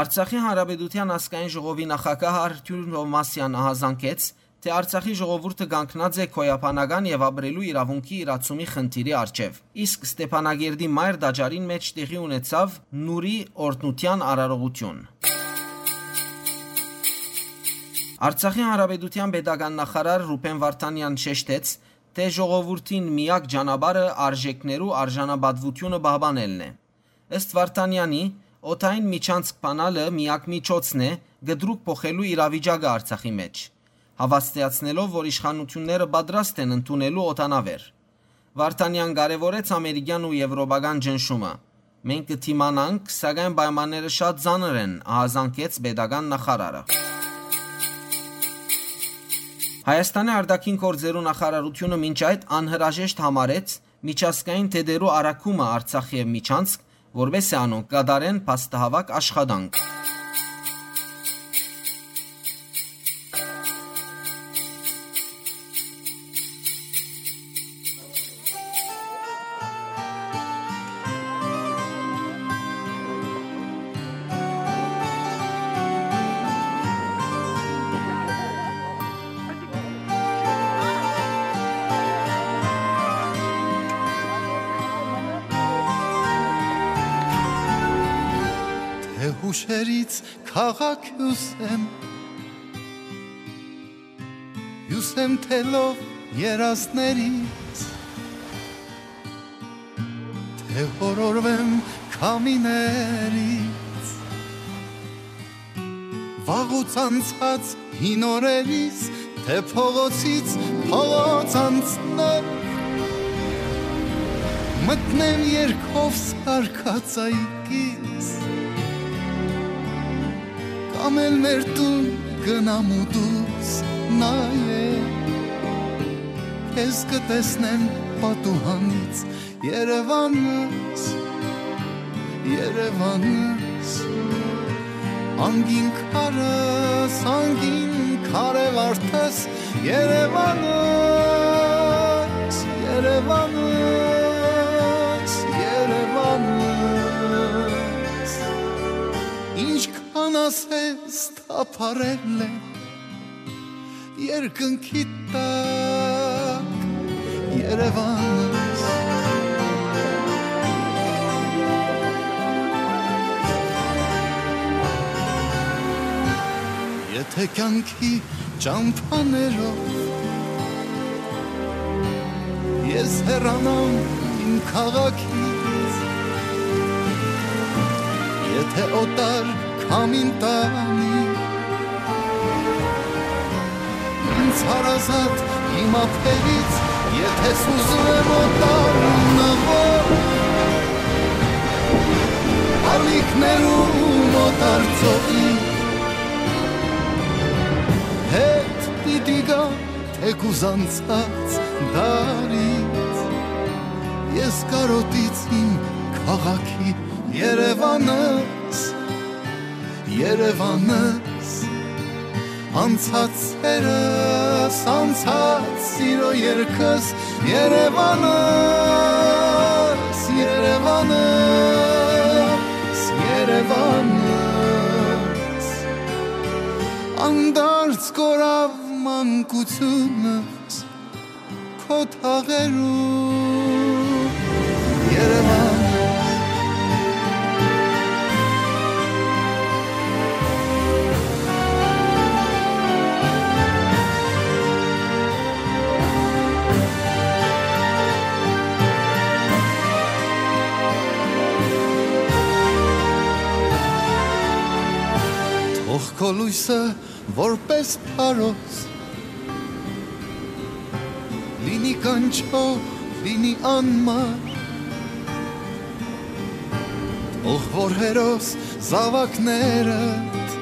Արցախի Հանրապետութեան ազգային ժողովի նախագահ Արթուր Թովմասեան ահազանգեց, թէ Արցախի ժողովուրդը կանգնած է գոյաբանական եւ ապրելու իրաւունքի իրացումի խնդիրի առջեւ, իսկ Ստեփանակերտի մայր տաճարին մէջ տեղի ունեցաւ Նուրի օրհնութեան արարողութիւն։ Արցախի Հանրապետութեան պետական նախարար Ռուբեն Վարդանեան շեշտեց, թէ ժողովուրդին միակ ճանապարհը արժէքներու արժանապատուութիւնը պահպանելն է։ Ըստ Վարդանեանի, օդային միջանցք բանալը միակ միջոցն է կտրուկ փոխելու իրավիճակը Արցախի մէջ։ Հաւաստիացնելով, որ իշխանութիւնները պատրաստ են ընդունելու օդանաւեր։ Վարդանեան կարեւորեց ամերիկեան ու եվրոպական ճնշումը։ «Մենք կը դիմանանք, սակայն պայմանները շատ ծանր են», ահազանգեց պետական նախարարը։ Հայաստանի արտաքին գործերու նախարարութիւնը մինչ այդ անհրաժեշտ համարեց միջազգային դետերու առաքումը Արցախ եւ Միջանցք, որպէս զի անոնք կատարեն փաստահաւաք աշխատանք։ Թէ յուշերից քաղաք հիւս եմ, հիւս եմ թելով երազներիս, թէ յորորվեմ քամիներից, վաղուց անցած հին օրերիս, թէ փողոցից փողոց անցնեմ, մտնեմ երկով սարկած այգիս, կամ էլ մեր տուն գնամ ու դուրս նայեմ, քեզ կը տեսնեմ պատուհանից, Երևանս, Երևանս, անգին քարս, անգին քարե վարդս, Երևանս, Երևանս, Երևանս, ինչքան ասես թափառել է երկնքի տակ, Երևանս։ Եթե կյանքի ճամփաներով ես հեռանամ իմ քաղաքից, եթե օտար քամին տանի ինձ հարազատ իմ ափերից, եթե սուզում եմ օտար նվով, ալիքներում օտար ծովի հետ պիտի գա թեկուզ անցած դարից, Ես կարոտից իմ քաղաքի Երևանս, Երևանս, անցած սերս, անցած սիրո երգս, Երևանս, Երևանս, Երևանս, անդարձ կորավ մանկությունս քո թաղերու Երևան։ Թող քո լույսը որպես փարոս լինի կանչող, լինի անմար, թող որ հերոս զաւակներդ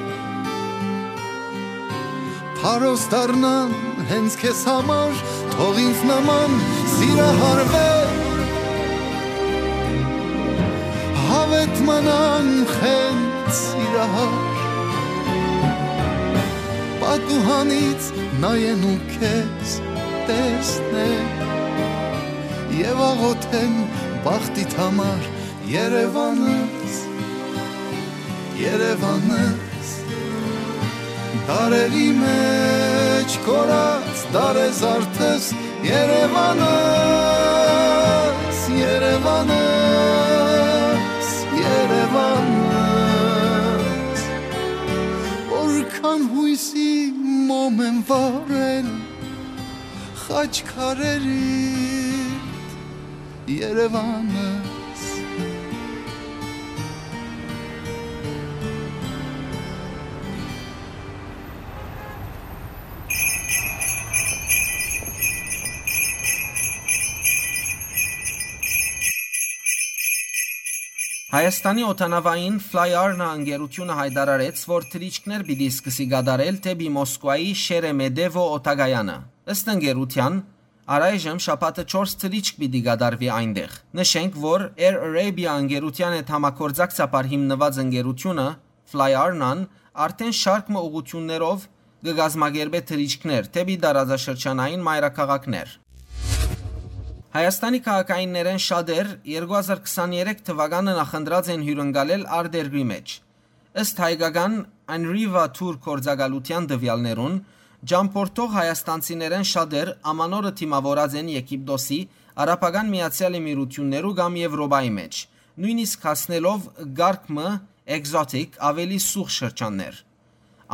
փարոս դառնան հենց քեզ համար, թող ինձ նման սիրահարվեր, հավետ մնան խենթ սիրահար, պատուհանից նայեն ու քեզ տեսնեն եւ աղոթեն բախտիդ համար, Երևանս, Երևանս, դարերի մեջ կորած դարեզարդս, Երևանս, Երևանս, Երևանս, որքան յոյսի մոմ են վառել խաչքարերիդ, Երևանս։ Հայաստանի օդանաւային Fly Arna ընկերութիւնը յայտարարեց, որ թռիչքներ պիտի սկսի կատարել դէպի Մոսկուայի Շերեմեդեվո օդակայանը։ Ըստ ընկերութեան, առայժմ շաբաթը չորս թռիչք պիտի կատարուի այնտեղ։ Նշենք, որ Air Arabia ընկերութեան հետ համագործակցաբար հիմնուած ընկերութիւնը Fly Arna-ն արդէն շարք մը ուղղութիւններով կը կազմակերպէ թռիչքներ դէպի տարածաշրջանային մայրաքաղաքներ։ Հայաստանի քաղաքայիններէն շատեր երկու հազար քսաներեք թուականը նախընտրած են հիւրընկալել արտերկրի մէջ։ Ըստ հայկական Anriva Tour գործակալութեան տուեալներուն, ճամբորդող հայաստանցիներէն շատեր ամանորը դիմաւորած են Եգիպտոսի, Արաբական Միացեալ Էմիրութիւններու կամ Եւրոպայի մէջ, նոյնիսկ հասնելով կարգ մը exotic, աւելի սուղ շրջաններ։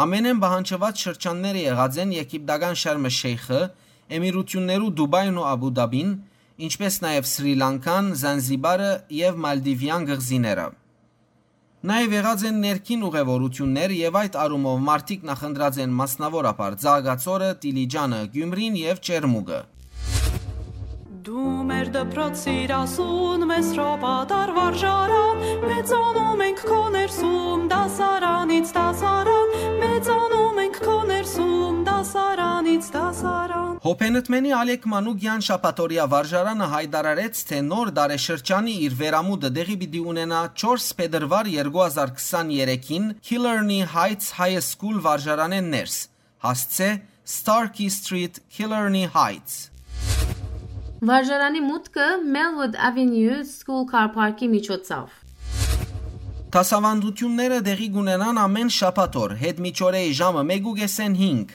Ամենէն պահանջուած շրջանները եղած են եգիպտական Շարմ Շեյխը, Էմիրութիւններու Դուբայն ու Աբու Դաբին, ինչպէս նաեւ Սրի Լանկան, Զանզիբարը եւ Մալդիվեան կղզիները։ Նաեւ եղած են ներքին ուղեւորութիւններ եւ այդ առումով մարդիկ նախընտրած են մասնաւորաբար Ծաղկաձորը, Տիլիջանը, Գիումրին եւ Ճերմուկը։ Դու մեր դպրոցիր ասուն, մեզ հրովատար վարժարան, մեծանում ենք քո ներսում, դասարանից դասարան, մեծանում ենք քո ներսում, դասարանից դասարան։ Հոփենտմենի Ալեք Մանուկեան շաբաթօրեայ վարժարանը յայտարարեց, թէ նոր տարեշրջանի իր վերամուտը տեղի պիտի ունենայ չորս փետրուար երկու հազար քսաներեքին Killarney Heights High School վարժարանէն ներս, հասցէ Starkey Street, Killarney Heights։ Վարժարանի մուտքը Melwood Avenue School Car Park-ի միջոցով։ Դասաւանդութիւնները տեղի կունենան ամէն շաբաթօր, յետմիջօրեի ժամը մէկ ու կէսէն հինգ։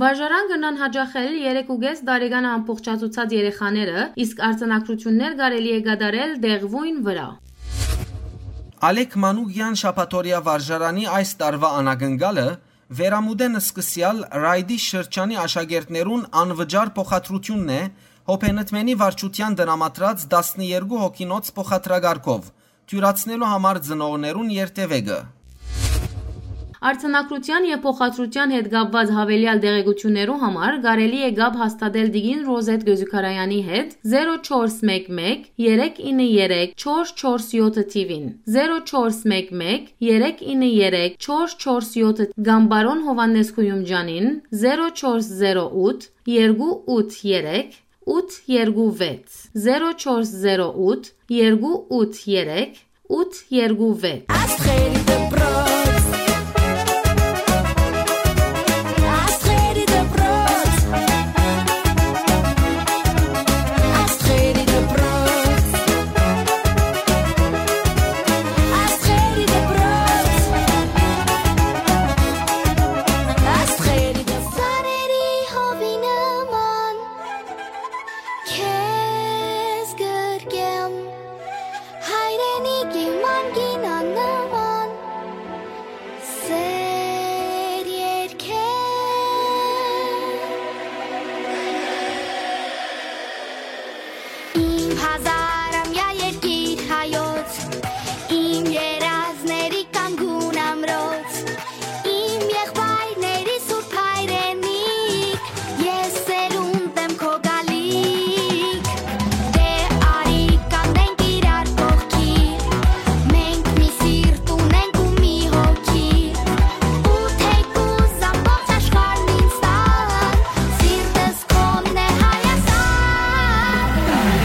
Վարժարան կրնան յաճախել երեք ու կէս տարեկան ամբողջացուցած երեխաները, իսկ արձանագրութիւններ կարելի է կատարել տեղւոյն վրայ։ Ալեք Մանուկեան շաբաթօրեայ վարժարանի այս տարուայ անակնկալը վերամուտէն սկսեալ Ռայդի շրջանի աշակերտներուն անվճար փոխադրութիւնն է Հոփենտմենի վարչութեան տրամադրած տասներկու հոգինոց փոխադրակարգով, դիւրացնելու համար ծնողներուն երթեւեկը։ Արձանագրութեան եւ փոխադրութեան հետ կապուած յաւելեալ տեղեկութիւններու համար կարելի է կապ հաստատել տիկին Ռոզետ Գոզուքարեանի հետ զերո չորս մէկ մէկ, երեք ինը երեք, չորս չորս յոթ թիւին, զերո չորս մէկ մէկ, երեք ինը երեք, չորս չորս յոթ, կամ պարոն Յովհաննէս Խուիումճանին, զերո չորս զերո ութ, երկու ութ երեք, ութ երկու վեց, զերո չորս զերո ութ երկու ութ երեք ութ երկու վեց։ Աստղերի դպրոց։ Աստղերի դպրոց։ Աստղերի դպրոց։ Աստղերի դպրոց։ Աստղերի դպրոց։ Սարերի հովի նման քեզ գրկեմ, հայրենիքի մանկին աննման սեր երկեմ։ Իմ հազարամյա երկիր հայոց, իմ երազների կանգուն ամրոց, իմ եղբայրների սուրբ հայրենիք, ես սերունդ եմ քո գալիք։ Դե արի կանգնենք իրար կողքի, մենք մի սիրտ ունենք ու մի հոգի, ու թեկուզ ամբողջ աշխարհն ինձ տան, սիրտս քոնն է Հայաստան։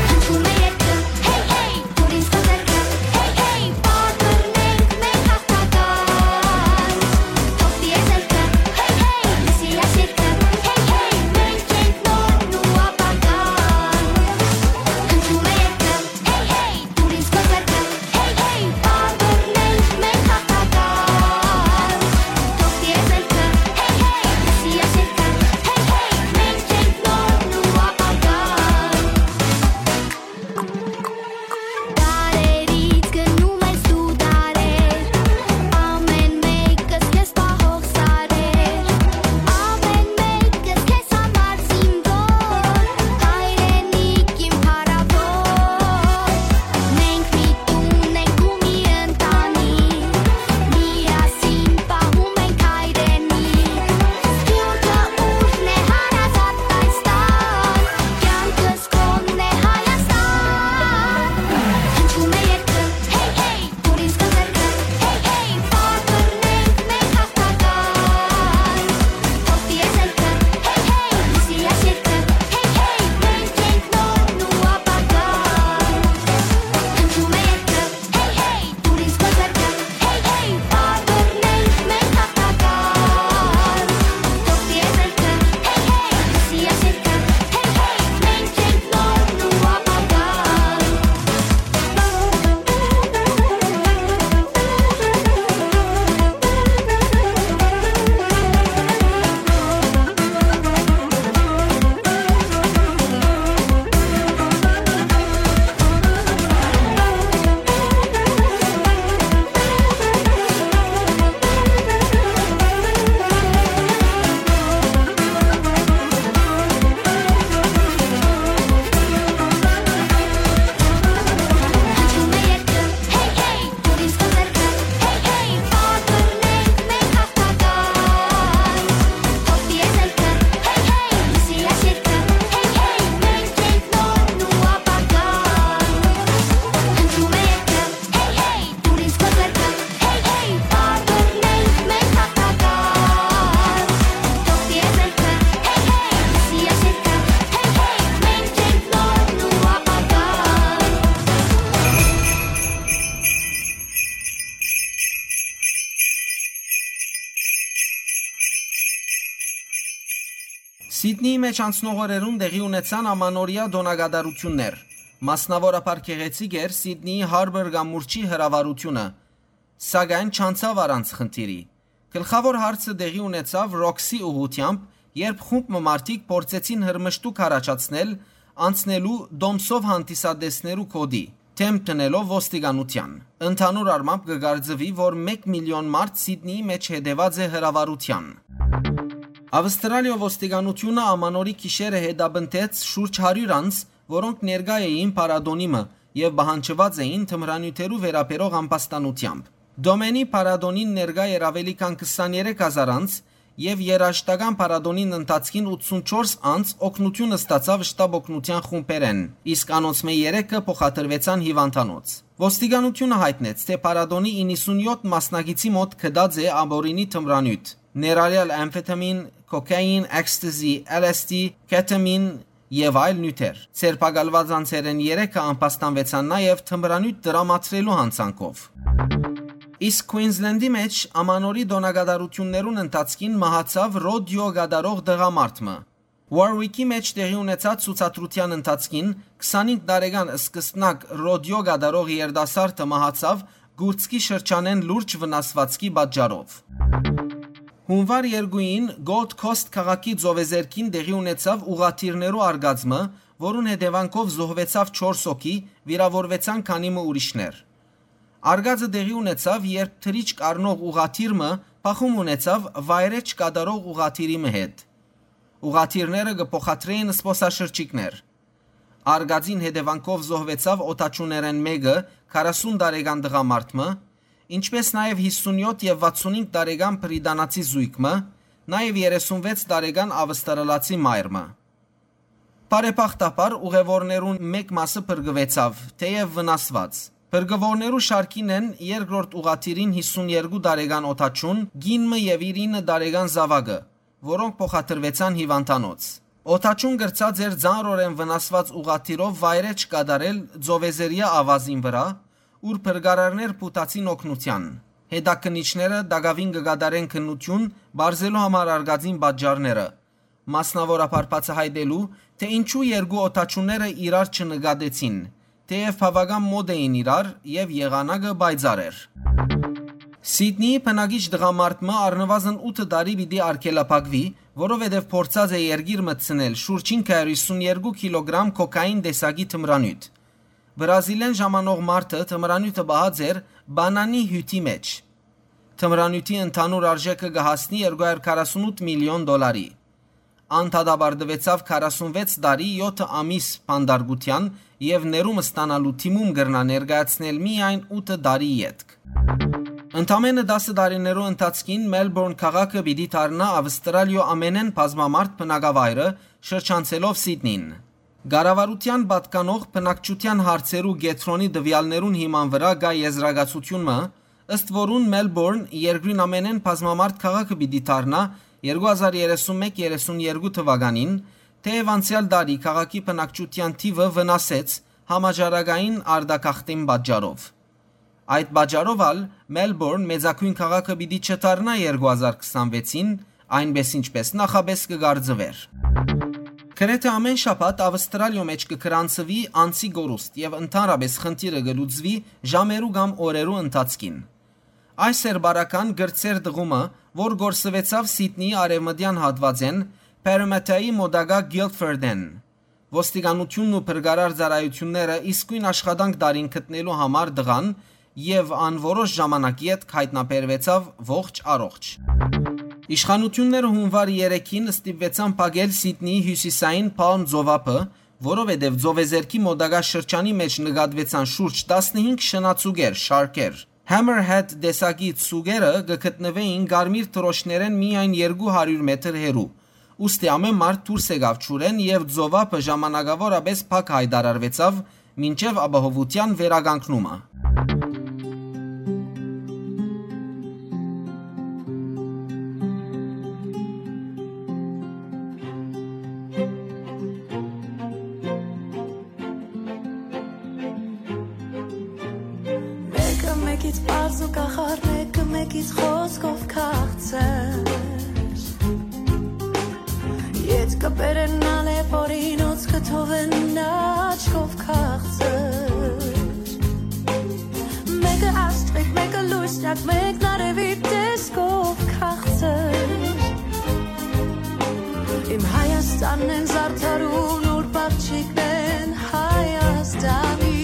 Հնչում է երգը, հեյ, հեյ, դուր ինձ քո ձեռքը, հեյ, հեյ, պարբռնենք մենք հաղթական։ Թող տիրե զելքը, հեյ, հեյ, լսի այս երգը, հեյ, հեյ, մենք ենք նորն ու ապագան։ Հնչում է երգը, հեյ, հեյ, դուր ինձ քո ձեռքը, հեյ, հեյ, պարբռնենք մենք հաղթական։ Թող տիրե զելքը, հեյ, հեյ, լսի այս երգը, հեյ, հեյ, մենք ենք նորն ու ապագան։ Դարերից գնում ես դու դարեր, ամեն մեկս քեզ պահող սարեր, ամեն մեկս քեզ համար զինվոր, հայրենիք իմ փառաւոր։ Մենք միտում ենք ու մի ընտանիք, միասին պահում ենք հայրենիք, սփիւռքը ուժն է հարազատ այս տան, կյանքս Կոնն է Հայաստան, հնչում է երգը, հեյ, հեյ, դուր ինձ քո ձեռքը, հեյ, հեյ, պարբռնենք մենք հաղթական։ Թող տիրե զելքը, հեյ, հեյ, լսի այս երգը, հեյ, հեյ, մենք ենք նորն ու ապագան։ Հնչում է երգը, հեյ, հեյ, դուր ինձ քո ձեռքը, հեյ, հեյ, պարբռնենք մենք հաղթական։ Թող տիրե զելքը, հեյ, հեյ, լսի այս երգը, հեյ, հեյ, մենք ենք նորն ու ապագան։ Հեյ, հեյ, պարբռնենք մենք հաղթական։ Թող տիրե զելքը, հեյ, հեյ, լսի այս երգը, հեյ, հեյ, մենք ենք նորն ու ապագան։ Սիդնիի մէջ անցնող օրերուն տեղի ունեցան ամանորեայ տօնակատարութիւններ։ Մասնաւորաբար գեղեցիկ էր Սիդնիի Հարբոր կամուրջի հրավառութիւնը, սակայն չանցաւ առանց խնդիրի։ Գլխաւոր հարցը տեղի ունեցաւ Ռոքսի ուղղութեամբ, երբ խումբ մը մարդիկ փորձեցին հրմշտուք առաջացնել անցնելու տոմսով հանդիսատեսներու գօտի, դէմ դնելով ոստիկանութեան։ Ընդհանուր առմամբ կը կարծուի, որ մէկ միլիոն մարդ Սիդնիի մէջ հետեւած է հրավառութեան։ Ավստրալիոյ ոստիկանութիւնը ամանորի գիշերը հետապնդեց շուրջ հարիւր անձ, որոնք ներկայ էին փառատոնի մը եւ պահանջուած էին թմրանիւթերու վերաբերող ամբաստանութեամբ։ Դոմենի փառատոնին ներկայ էր աւելի քան քսաներեք հազար անձ, եւ երաժշտական փառատոնին ընթացքին ութսունչորս անձ օգնութիւն ստացաւ շտապօգնութեան խումբերէն, իսկ անոնցմէ երեքը փոխադրուեցան հիւանդանոց։ Ոստիկանութիւնը յայտնեց, թէ փառատոնի իննսունյոթ մասնակիցի մօտ գտած է ապօրինի թմրանիւթ, ներառյալ ամֆետամին, կոքային, էքստազի, L S D, կեթամին, եւ այլ նիւթեր։ Ձերբակալուած անձերէն երեքը ամբաստանուեցան նաեւ թմրանիւթ տրամադրելու յանցանքով։ Իսկ Քուինզլենդի մէջ Ամանորի տօնակատարութիւններուն ընթացքին մահացաւ ռոդիո կատարող տղամարդ մը։ Warwick-ի մէջ տեղի ունեցած ցուցադրութեան ընթացքին քսանհինգ տարեկան սկսնակ ռոդիո կատարող երիտասարդը մահացաւ կուրծքի շրջանէն լուրջ վնասուածքի պատճառով։ Հունուար երկուին Gold Coast քաղաքի ծովեզերքին տեղի ունեցաւ ուղղաթիռներու արկածը, որուն հետեւանքով զոհուեցաւ չորս հոգի, վիրաւորուեցան քանի մը ուրիշներ։ Արկածը տեղի ունեցաւ, երբ թռիչք առնող ուղղաթիռ մը բախում ունեցաւ վայրէջք կատարող ուղղաթիռի մը հետ։ Ուղղաթիռները կը փոխադրէին զբօսաշրջիկներ։ Արկածին հետեւանքով զոհուեցաւ օդաչուներէն մէկը, քառասուն տարեկան տղամարդ մը, ինչպէս նաեւ յիսունյոթ եւ վաթսունհինգ տարեկան բրիտանացի զոյգ մը, նաեւ երեսունվեց տարեկան ավստրալացի մայր մը։ Բարեբախտաբար, ուղեւորներուն մէկ մասը փրկուեցաւ, թէեւ վնասուած։ Փրկուորներու շարքին են երկրորդ ուղղաթիռին յիսուներկու տարեկան օդաչուն, կին մը եւ իր ինը տարեկան զաւակը, որոնք փոխադրուեցան հիւանդանոց։ Օդաչուն կրցած էր ծանրօրէն վնասուած ուղղաթիռով վայրէջք կատարել ծովեզերեայ աւազին վրայ, ուր փրկարարներ փութացին օգնութեան։ Հետաքննիչները տակաւին կը կատարեն քննութիւն՝ պարզելու համար արկածին պատճառները, մասնաւորաբար բացայայտելու, թէ ինչու երկու օդաչուները իրար չնկատեցին, թէեւ բաւական մօտ էին իրար եւ եղանակը պայծառ էր։ Սիդնիի բնակիչ տղամարդ մը առնուազն ութ տարի պիտի արգելափակուի, որովհետեւ փորձած է երկիր մտցնել շուրջ հինգ հարիւր յիսուն երկու կիլոգրամ կոկային տեսակի թմրանիւթ։ Բրազիլէն ժամանող մարդը թմրանիւթը պահած էր Պանանի հիւթի մէջ։ Թմրանիւթի ընդհանուր արժէքը կը հասնի երկու հարիւր քառասունութ միլիոն դոլարի։ Ան դատապարտուեցաւ քառասունվեց տարի եօթ ամիս բանտարկութեան եւ ներում ստանալու դիմում կրնայ ներկայացնել միայն ութ տարի ետք։ Ընդամէնը տասը տարիներու ընթացքին Մելբորն քաղաքը պիտի դառնայ Ավստրալիոյ ամենէն բազմամարդ բնակավայրը՝ շրջանցելով Սիդնին։ Կառավարութեան պատկանող բնակչութեան հարցերու կեդրոնի տուեալներուն հիման վրայ կայ եզրակացութիւն մը, ըստ որուն Մելբորն երկրին ամենէն բազմամարդ քաղաքը պիտի դառնայ երկու հազար երեսուն մէկ երեսուն երկու թուականին, թէեւ անցեալ տարի քաղաքի բնակչութեան թիւը վնասեց համաճարակային արտագաղթին պատճառով։ Այդ պատճառով ալ Մելբորն մեծագոյն քաղաքը պիտի չդառնայ երկու հազար քսանվեցին, այնպէս ինչպէս նախապէս կը կարծուէր։ Գրեթէ ամէն շաբաթ Ավստրալիոյ մէջ կը գրանցուի անձի կորուստ եւ ընդհանրապէս խնդիրը կը լուծուի ժամերու կամ օրերու ընթացքին։ Այս էր բարական կրտսեր դղումը, որ կորսուեցաւ Սիդնիի արեւմտեան հատուածէն Պերեմեթայի մօտակայ Գիլֆորդէն։ Ոստիկանութիւնն ու փրկարար ծառայութիւնները իսկոյն աշխատանք տարին գտնելու համար տղան, եւ ան որոշ ժամանակ ետք յայտնաբերուեցաւ ողջ առողջ։ Իշխանութիւնները հունուար երեքին ստիպուեցան փակել Սիդնիի հիւսիսային Պալմ ծովափը, որովհետեւ ծովեզերքի մօտակայ շրջանի մէջ նկատուեցան շուրջ տասնհինգ շնաձուկեր, շարքեր։ Hammerhead տեսակի ձուկերը կը գտնուէին կարմիր դրոշներէն միայն երկու հարիւր մետր հեռու, ուստի ամէն մարդ դուրս եկաւ ջուրէն եւ ծովափը ժամանակաւորապէս փակ յայտարարուեցաւ մինչեւ ապահովութեան վերականգնումը։ Մեկը մեկից պարզ ու կախարդ, մեկը մեկից խոսքով քաղցր։ Ետքը բերեն ալեւ օրինոց կը թողեն աչքով քաղցր։ Մեկը աստղիկ, մեկը լույսնյակ, մեկն արեւի տեսքով քաղցր։ Իմ Հայաստանն են զարդարուն, ուր պապչիկն են Հայաստանի։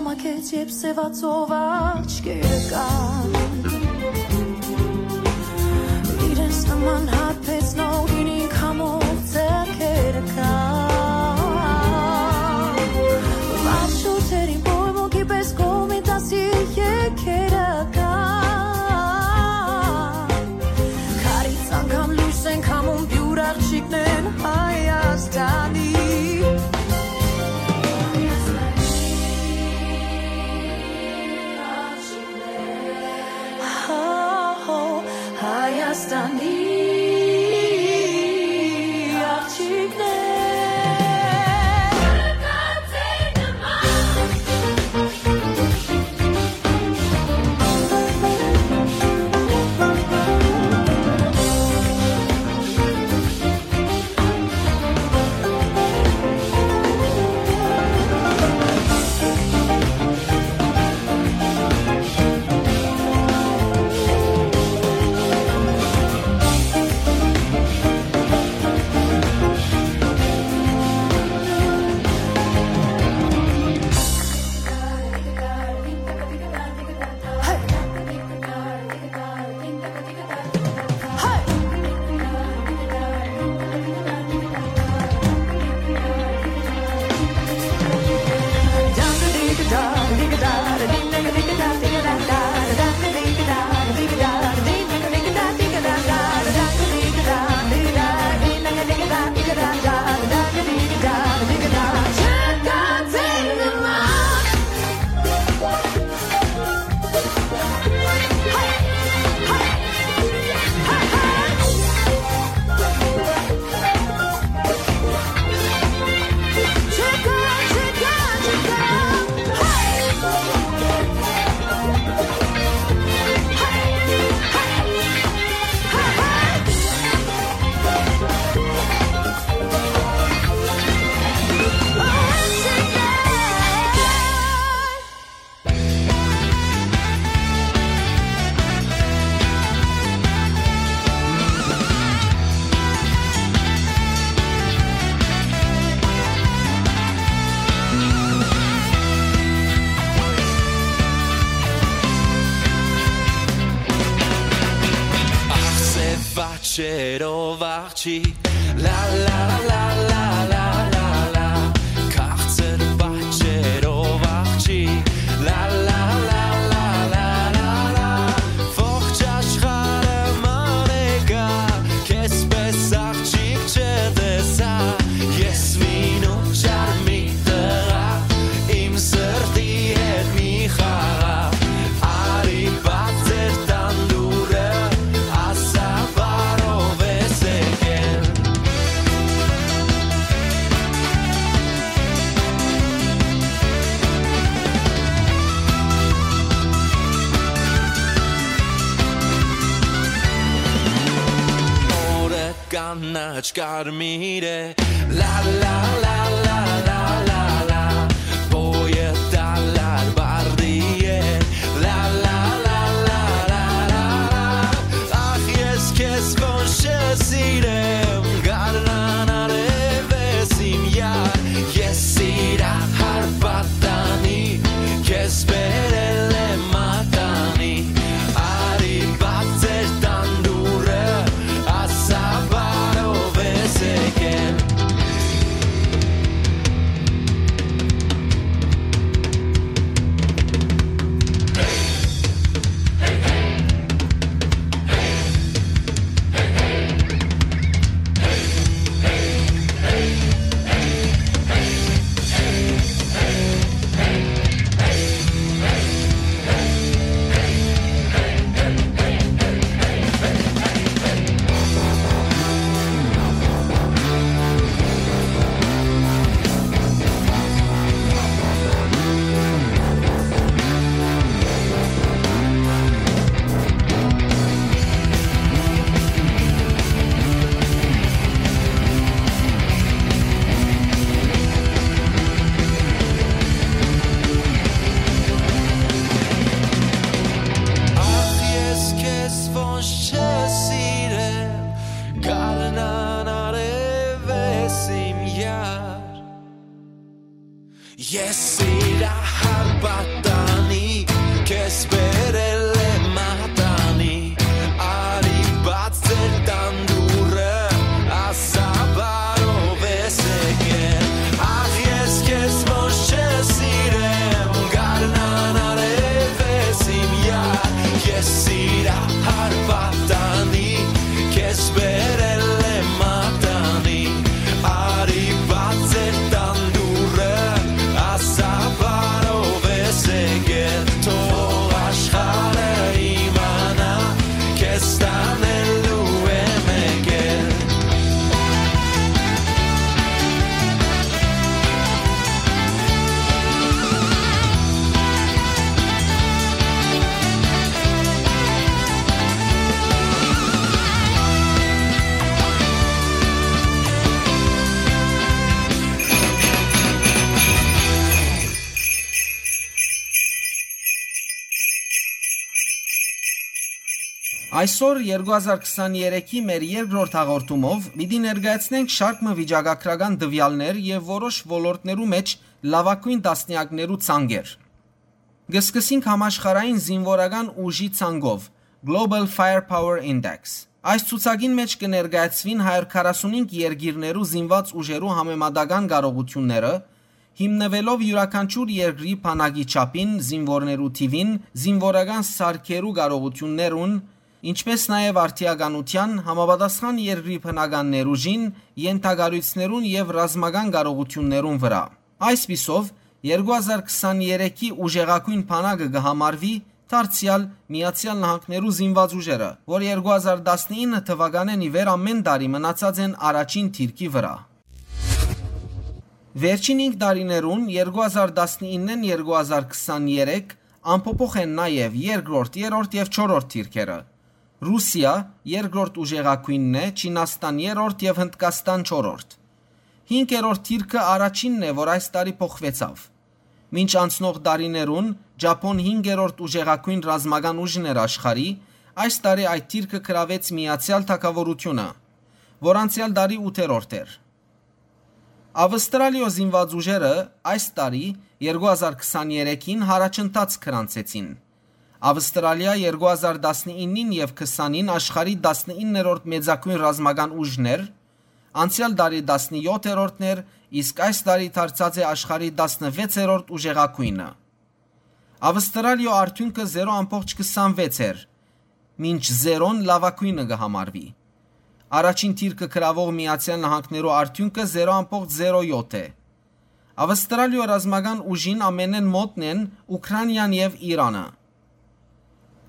Ակեց, երբ սեւացող աչքերը կան, իրենց նման հարբեցնող գինի քամով ձեռքերը կան, վառ շուրջերին պոյմունքի պես կողմի դասի եկերը կան, քարից անգամ լույս են քամում, պիւր աղջիկներն Հայաստանի։ Հայաստանի աղջիկներ։ Ախ, սեւ աչքերով աղջիկ, լա, լա, լա, լա, լա, լա, լա, քաղցր պատճերով աղջիկ, լա, լա, լա, լա, լա, լա, լա, ողջ աշխարհը մալեկա, քեզպէս աղջիկ չտեսայ, ես մինուկ չար մի տղայ, իմ սրտի հետ մի խաղաղ, արի բաց էր տան դուռը, ասա բարով ես եկել։ Օրը կանաչ կարմիր է, լա, լա, լա, լա, լա, լա, լա, բոյը դալար բարդի է, լա, լա, լա, լա, լա, լա, լա, ախ, ես քեզ ոնց չսիրեմ, գարնան արեւես իմ յար, ես սիրահար պատանի, քեզ բերել եմ մատանի, արի բաց էր տան դուռը, ասա բարով ես եկել։ Այսօր, երկու հազար քսաներեքի մեր երկրորդ հաղորդումով, պիտի ներկայացնենք շարք մը վիճակագրական տուեալներ եւ որոշ ոլորտներու մէջ լաւագոյն տասնեակներու ցանկեր։ Կը սկսենք համաշխարհային զինուորական ուժի ցանկով, Global Firepower Index։ Այս ցուցակին մէջ կը ներկայացուին հարիւր քառասունհինգ երկիրներու զինուած ուժերու համեմատական կարողութիւնները, հիմնուելով իւրաքանչիւր երկրի բանակի չափին, զինուորներու թիւին, զինուորական սարքերու կարողութիւններուն, ինչպէս նաեւ արդիականութեան, համապատասխան երկրի բնական ներուժին, ենթակառոյցներուն եւ ռազմական կարողութիւններուն վրայ։ Այսպիսով, երկու հազար քսաներեքի ուժեղագոյն բանակը կը համարուի դարձեալ Միացեալ Նահանգներու զինուած ուժերը, որ երկու հազար տասնինը թուականէն ի վեր ամէն տարի մնացած են առաջին դիրքի վրայ։ Վերջին հինգ տարիներուն՝ երկու հազար տասնիննէն երկու հազար քսաներեք, անփոփոխ են նաեւ երկրորդ, երրորդ եւ չորրորդ դիրքերը։ Ռուսիա երկրորդ ուժեղագոյնն է, Չինաստան երրորդ եւ Հնդկաստան չորրորդ։ Հինգերորդ դիրքը առաջինն է, որ այս տարի փոխուեցաւ։ Մինչ անցնող տարիներուն Ճափոն հինգերորդ ուժեղագոյն ռազմական ուժն էր աշխարհի, այս տարի այդ դիրքը գրաւեց Միացեալ Թագաւորութիւնը, որ անցեալ տարի ութերորդ էր։ Ավստրալիոյ զինուած ուժերը այս տարի՝ երկու հազար քսաներեքին, յառաջընթաց գրանցեցին։ Ավստրալիա երկու հազար տասնիննին եւ քսանին աշխարհի տասնիններորդ մեծագոյն ռազմական ուժն էր, անցեալ տարի տասնյոթերորդն էր, իսկ այս տարի դարձած է աշխարհի տասնվեցերորդ ուժեղագոյնը։ Ավստրալիոյ արդիւնքը զերո ամբողջ քսանվեց էր, մինչ զերոն լաւագոյնը կը համարուի։ Առաջին դիրքը գրաւող Միացեալ Նահանգներու արդիւնքը զերո ամբողջ զերո յոթ է։ Ավստրալիոյ ռազմական ուժին ամենէն մօտն են Ուքրանիան եւ Իրանը։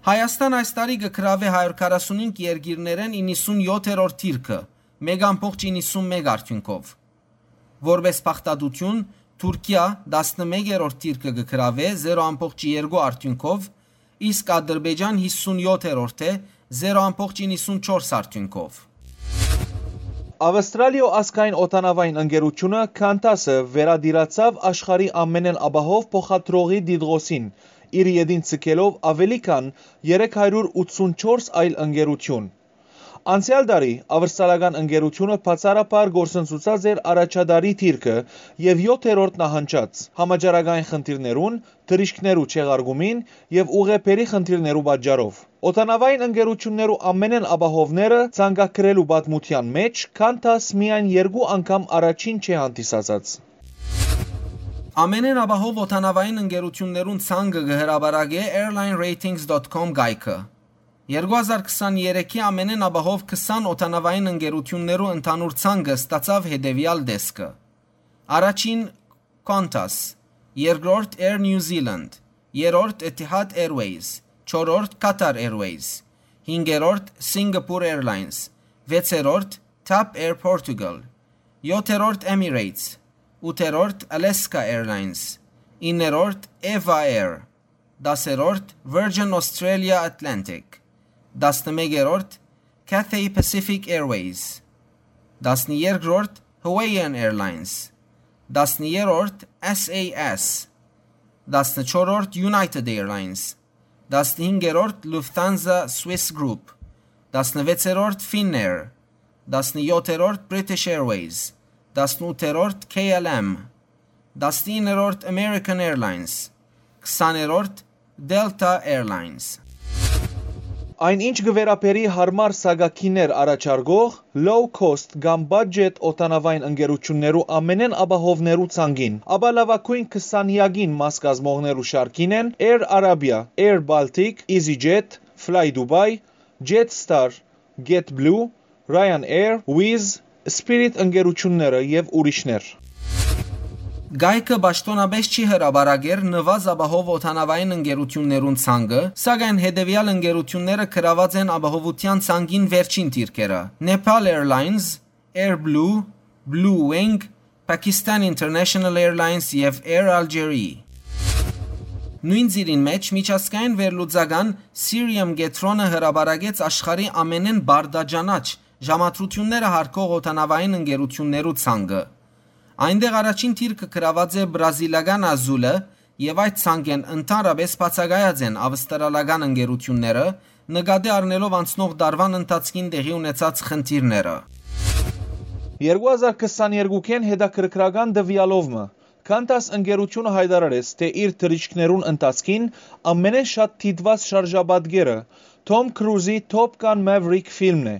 Հայաստան այս տարի կը գրաւէ հարիւր քառասունհինգ երկիրներէն իննսունյոթերորդ դիրքը, մէկ ամբողջ իննսունմեկ արդիւնքով։ Որպէս փախտատութիւն, Թուրքիա տասնմեկերորդ դիրքը կը գրաւէ զերո ամբողջ երկու արդիւնքով, իսկ Ադրբեջան հիսունյոթերորդ է, զերո ամբողջ իննսունչորս արդիւնքով։ Ավստրալիոյ ազգային օդանաւային ընկերութիւնը՝ Qantas-ը, վերատիրացաւ աշխարհի ամենէն ապահով փոխադրողի տիտղոսին, իր ետին ձգելով աւելի քան երեք հարիւր ութսունչորս այլ ընկերութիւն։ Անցեալ տարի ավստրալական ընկերութիւնը բացառաբար կորսնցուցած էր առաջատարի դիրքը եւ յոթերորդ նահանջած՝ համաճարակային խնդիրներուն, թռիչքներու չեղարկումին եւ ուղեբերի խնդիրներու պատճառով։ Օդանաւային ընկերութիւններու ամենէն ապահովները ցանկագրելու պատմութեան մէջ Qantas միայն երկու անգամ առաջին չէ հանդիսացած։ Ամենէն ապահով օդանաւային ընկերութիւններուն ցանկը կը հրապարակէ airline ratings dot com կայքը։ Երկու հազար քսաներեքի ամենէն ապահով քսան օդանաւային ընկերութիւններու ընդհանուր ցանկը ստացաւ հետեւեալ տեսքը։ Առաջին՝ Qantas, երկրորդ՝ Air New Zealand, երրորդ՝ Etihad Airways, չորրորդ՝ Qatar Airways, հինգերորդ՝ Singapore Airlines, վեցերորդ՝ TAP Air Portugal, յոթերորդ՝ Emirates, ութերորդ՝ Alaska Airlines, իններորդ՝ Eva Air, դասերորդ՝ Virgin Australia Atlantic, տասնմեկերորդ՝ Cathay Pacific Airways, տասներկրորդ՝ Hawaiian Airlines, տասներորդ՝ SAS, տասնչորրորդ՝ United Airlines, տասնհինգերորդ՝ Lufthansa Swiss Group, տասնվեցերորդ՝ Finnair, տասնյոթերորդ՝ British Airways, տասնութերորդ՝ K L M, տասնիններորդ՝ American Airlines, քսաներորդ՝ Delta Airlines։ Այն, ինչ կը վերաբերի յարմար սակագիներ առաջարկող, low cost կամ budget օդանաւային ընկերութիւններու ամենէն ապահովներու ցանկին, ապա լաւագոյն քսանեակին մաս կազմողներու շարքին են Air Arabia, Air Baltic, EasyJet, Fly Dubai, Jetstar, JetBlue, Ryanair, Wizz, Spirit ընկերութիւնները եւ ուրիշներ։ Կայքը պաշտօնապէս չի հրապարակեր նուազ ապահով օդանաւային ընկերութիւններուն ցանկը, սակայն հետեւեալ ընկերութիւնները գրաւած են ապահովութեան ցանկին վերջին դիրքերը՝ Nepal Airlines, Air Blue, Blue Wing, Pakistan International Airlines եւ Air Algérie։ Նոյն ծիրին մէջ միջազգային վերլուծական Cirium կեդրոնը հրապարակեց աշխարհի ամենէն բարդաճանաչ ժամադրութիւնները յարգող օդանաւային ընկերութիւններու ցանկը։ Այնտեղ առաջին դիրքը գրաւած է բրազիլական Azul-ը եւ այդ ցանկէն ընդհանրապէս բացակայած են ավստրալական ընկերութիւնները, նկատի առնելով անցնող տարուան ընթացքին տեղի ունեցած խնդիրները։ Երկու հազար քսաներկուքէն հետաքրքրական տուեալով մը, Qantas ընկերութիւնը յայտարարեց, թէ իր թռիչքներուն ընթացքին ամենէն շատ դիտուած շարժապատկերը Թոմ Քրուզի Top Gun Maverick ֆիլմն է,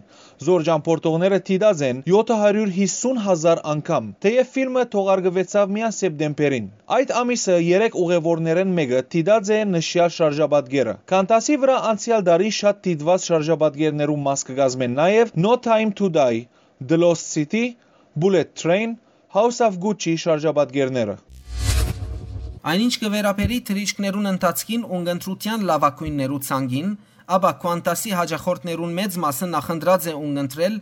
զոր ճամբորդողները դիտած են յոթ հարիւր յիսուն հազար անգամ, թէեւ ֆիլմը թողարկուեցաւ միայն սեպտեմբերին։ Այդ ամիսը երեք ուղեւորներէն մէկը դիտած է նշեալ շարժապատկերը։ Qantas-ի վրայ անցեալ տարի շատ դիտուած շարժապատկերներու մաս կը կազմեն նաեւ No Time to Die, The Lost City, Bullet Train, House of Gucci շարժապատկերները։ Այնինչ կը վերաբերի թռիչքներուն ընթացքին ունկնդրութեան լաւագոյններու ցանկին, ապա Qantas-ի յաճախորդներուն մեծ մասը նախընտրած է ունկնդրել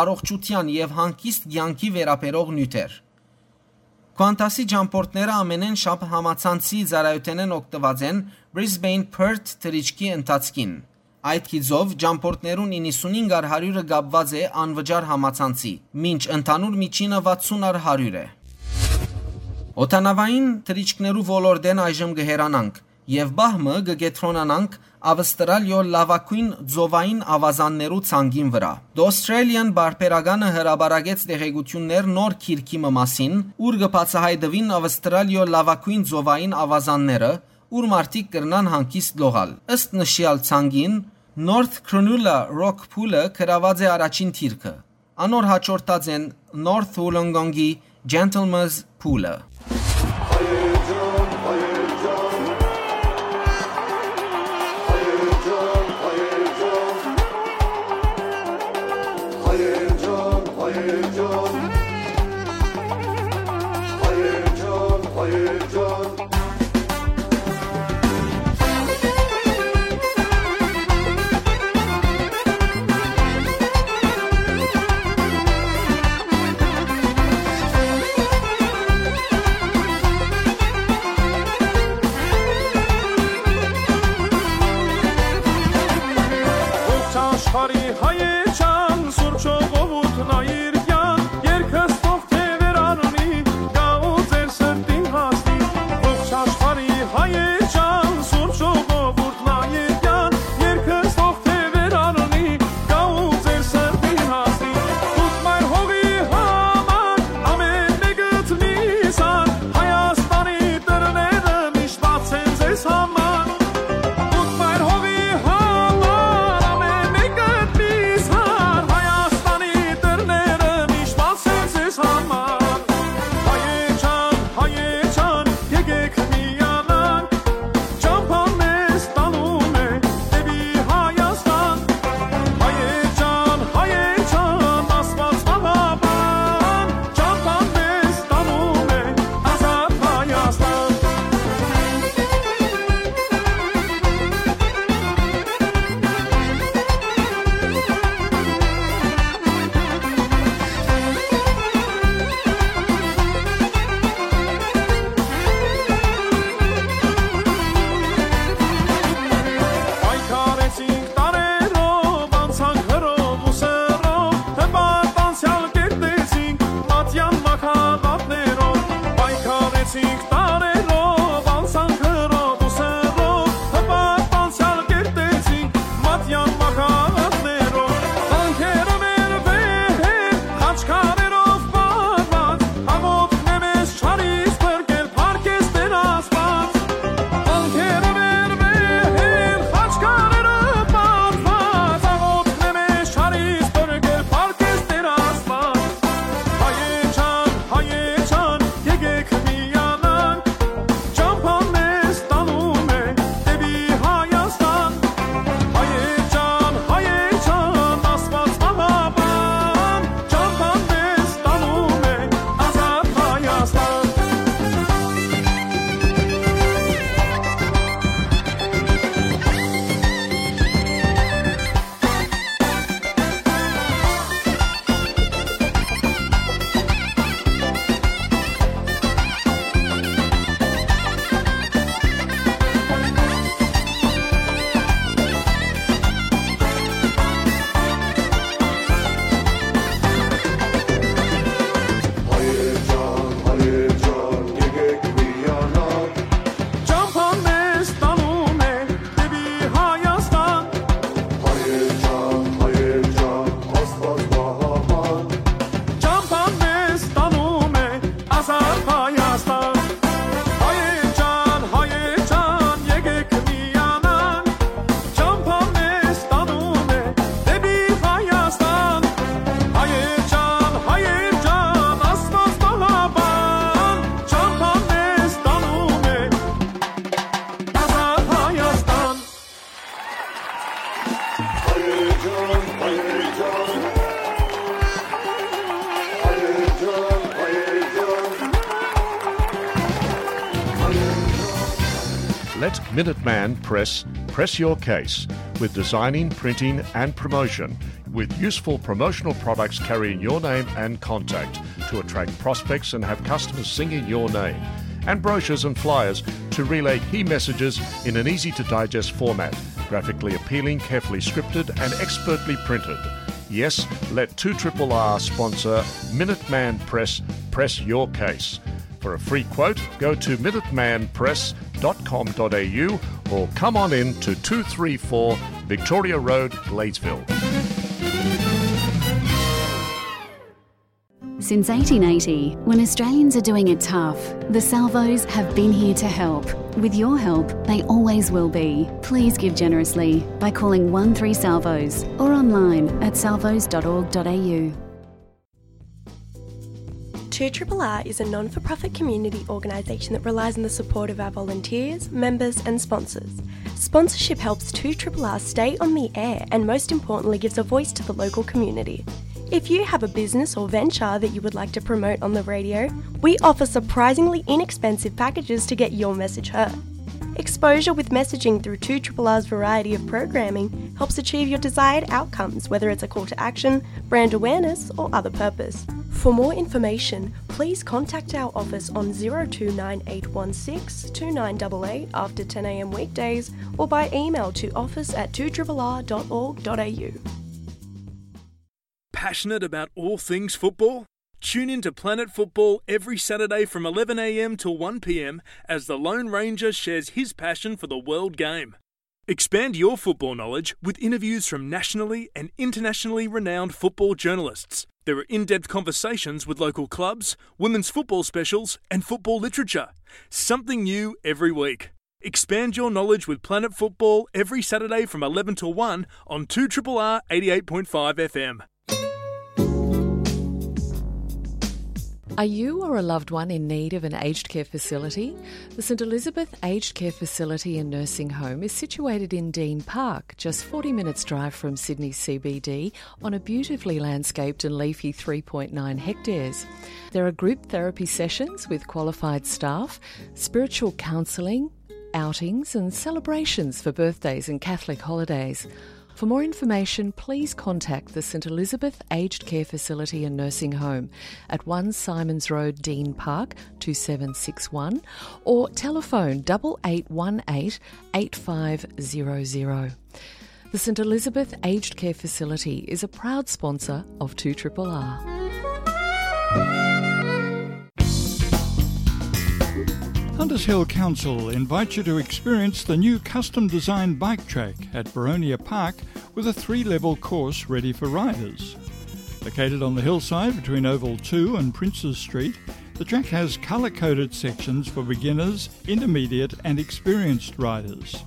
առողջութեան եւ հանգիստ կեանքի վերաբերող նիւթեր։ Qantas-ի ճամբորդները ամենէն շատ համացանցի ծառայութենէն օգտուած են Brisbane Perth թռիչքի ընթացքին։ Այդ գիծով, ճամբորդներուն իննսունհինգ առ հարիւրը կապուած է անվճար համացանցի, մինչ ընդհանուր միջինը վաթսուն առ հարիւր է։ Օդանաւային թռիչքներու ոլորտէն այժմ կը հեռանանք եւ պահ մը կը կեդրոնանանք Ավստրալիոյ լաւագոյն ծովային աւազաններու ցանկին վրայ։ The Australian պարբերականը հրապարակեց տեղեկութիւններ նոր գիրքի մը մասին, ուր կը բացայայտուին Ավստրալիոյ լաւագոյն ծովային աւազանները, ուր մարդիկ կրնան հանգիստ լողալ։ Ըստ նշեալ ցանկին, North Cronulla Rock Pool-ը գրաւած է առաջին դիրքը։ Անոր յաջորդած են North Wollongong-ի Gentlemen's Pool-ը։ At Minuteman Press, press your case with designing, printing, and promotion, with useful promotional products carrying your name and contact to attract prospects and have customers singing your name, and brochures and flyers to relay key messages in an easy to digest format, graphically appealing, carefully scripted, and expertly printed. Yes, let two triple R sponsor Minuteman Press press your case. For a free quote, go to minuteman press dot com dot a u or come on in to two three four Victoria Road, Gladesville. Since eighteen eighty, when Australians are doing it tough, the Salvos have been here to help. With your help, they always will be. Please give generously by calling one three Salvos or online at salvos dot org dot a u. Two R R R is a non for profit community organisation that relies on the support of our volunteers, members, and sponsors. Sponsorship helps two R R R stay on the air and, most importantly, gives a voice to the local community. If you have a business or venture that you would like to promote on the radio, we offer surprisingly inexpensive packages to get your message heard. Exposure with messaging through two R R R's variety of programming helps achieve your desired outcomes, whether it's a call to action, brand awareness, or other purpose. For more information, please contact our office on zero two nine eight one six two nine eight eight after ten a m weekdays or by email to office at two R R R dot org dot a u. Passionate about all things football? Tune in to Planet Football every Saturday from eleven a m to one p m as the Lone Ranger shares his passion for the world game. Expand your football knowledge with interviews from nationally and internationally renowned football journalists. There are in-depth conversations with local clubs, women's football specials, and football literature. Something new every week. Expand your knowledge with Planet Football every Saturday from eleven to one on two R R R eighty-eight point five F M. Are you or a loved one in need of an aged care facility? The St Elizabeth Aged Care Facility and Nursing Home is situated in Dean Park, just forty minutes' drive from Sydney's C B D, on a beautifully landscaped and leafy three point nine hectares. There are group therapy sessions with qualified staff, spiritual counselling, outings and celebrations for birthdays and Catholic holidays. For more information, please contact the St Elizabeth Aged Care Facility and Nursing Home at one Simons Road, Dean Park, two seven six one, or telephone double eight one eight eight five zero zero. The St Elizabeth Aged Care Facility is a proud sponsor of two R R R. Hunters Hill Council invites you to experience the new custom designed bike track at Boronia Park with a three level course ready for riders. Located on the hillside between Oval two and Princes Street, the track has colour coded sections for beginners, intermediate, and experienced riders.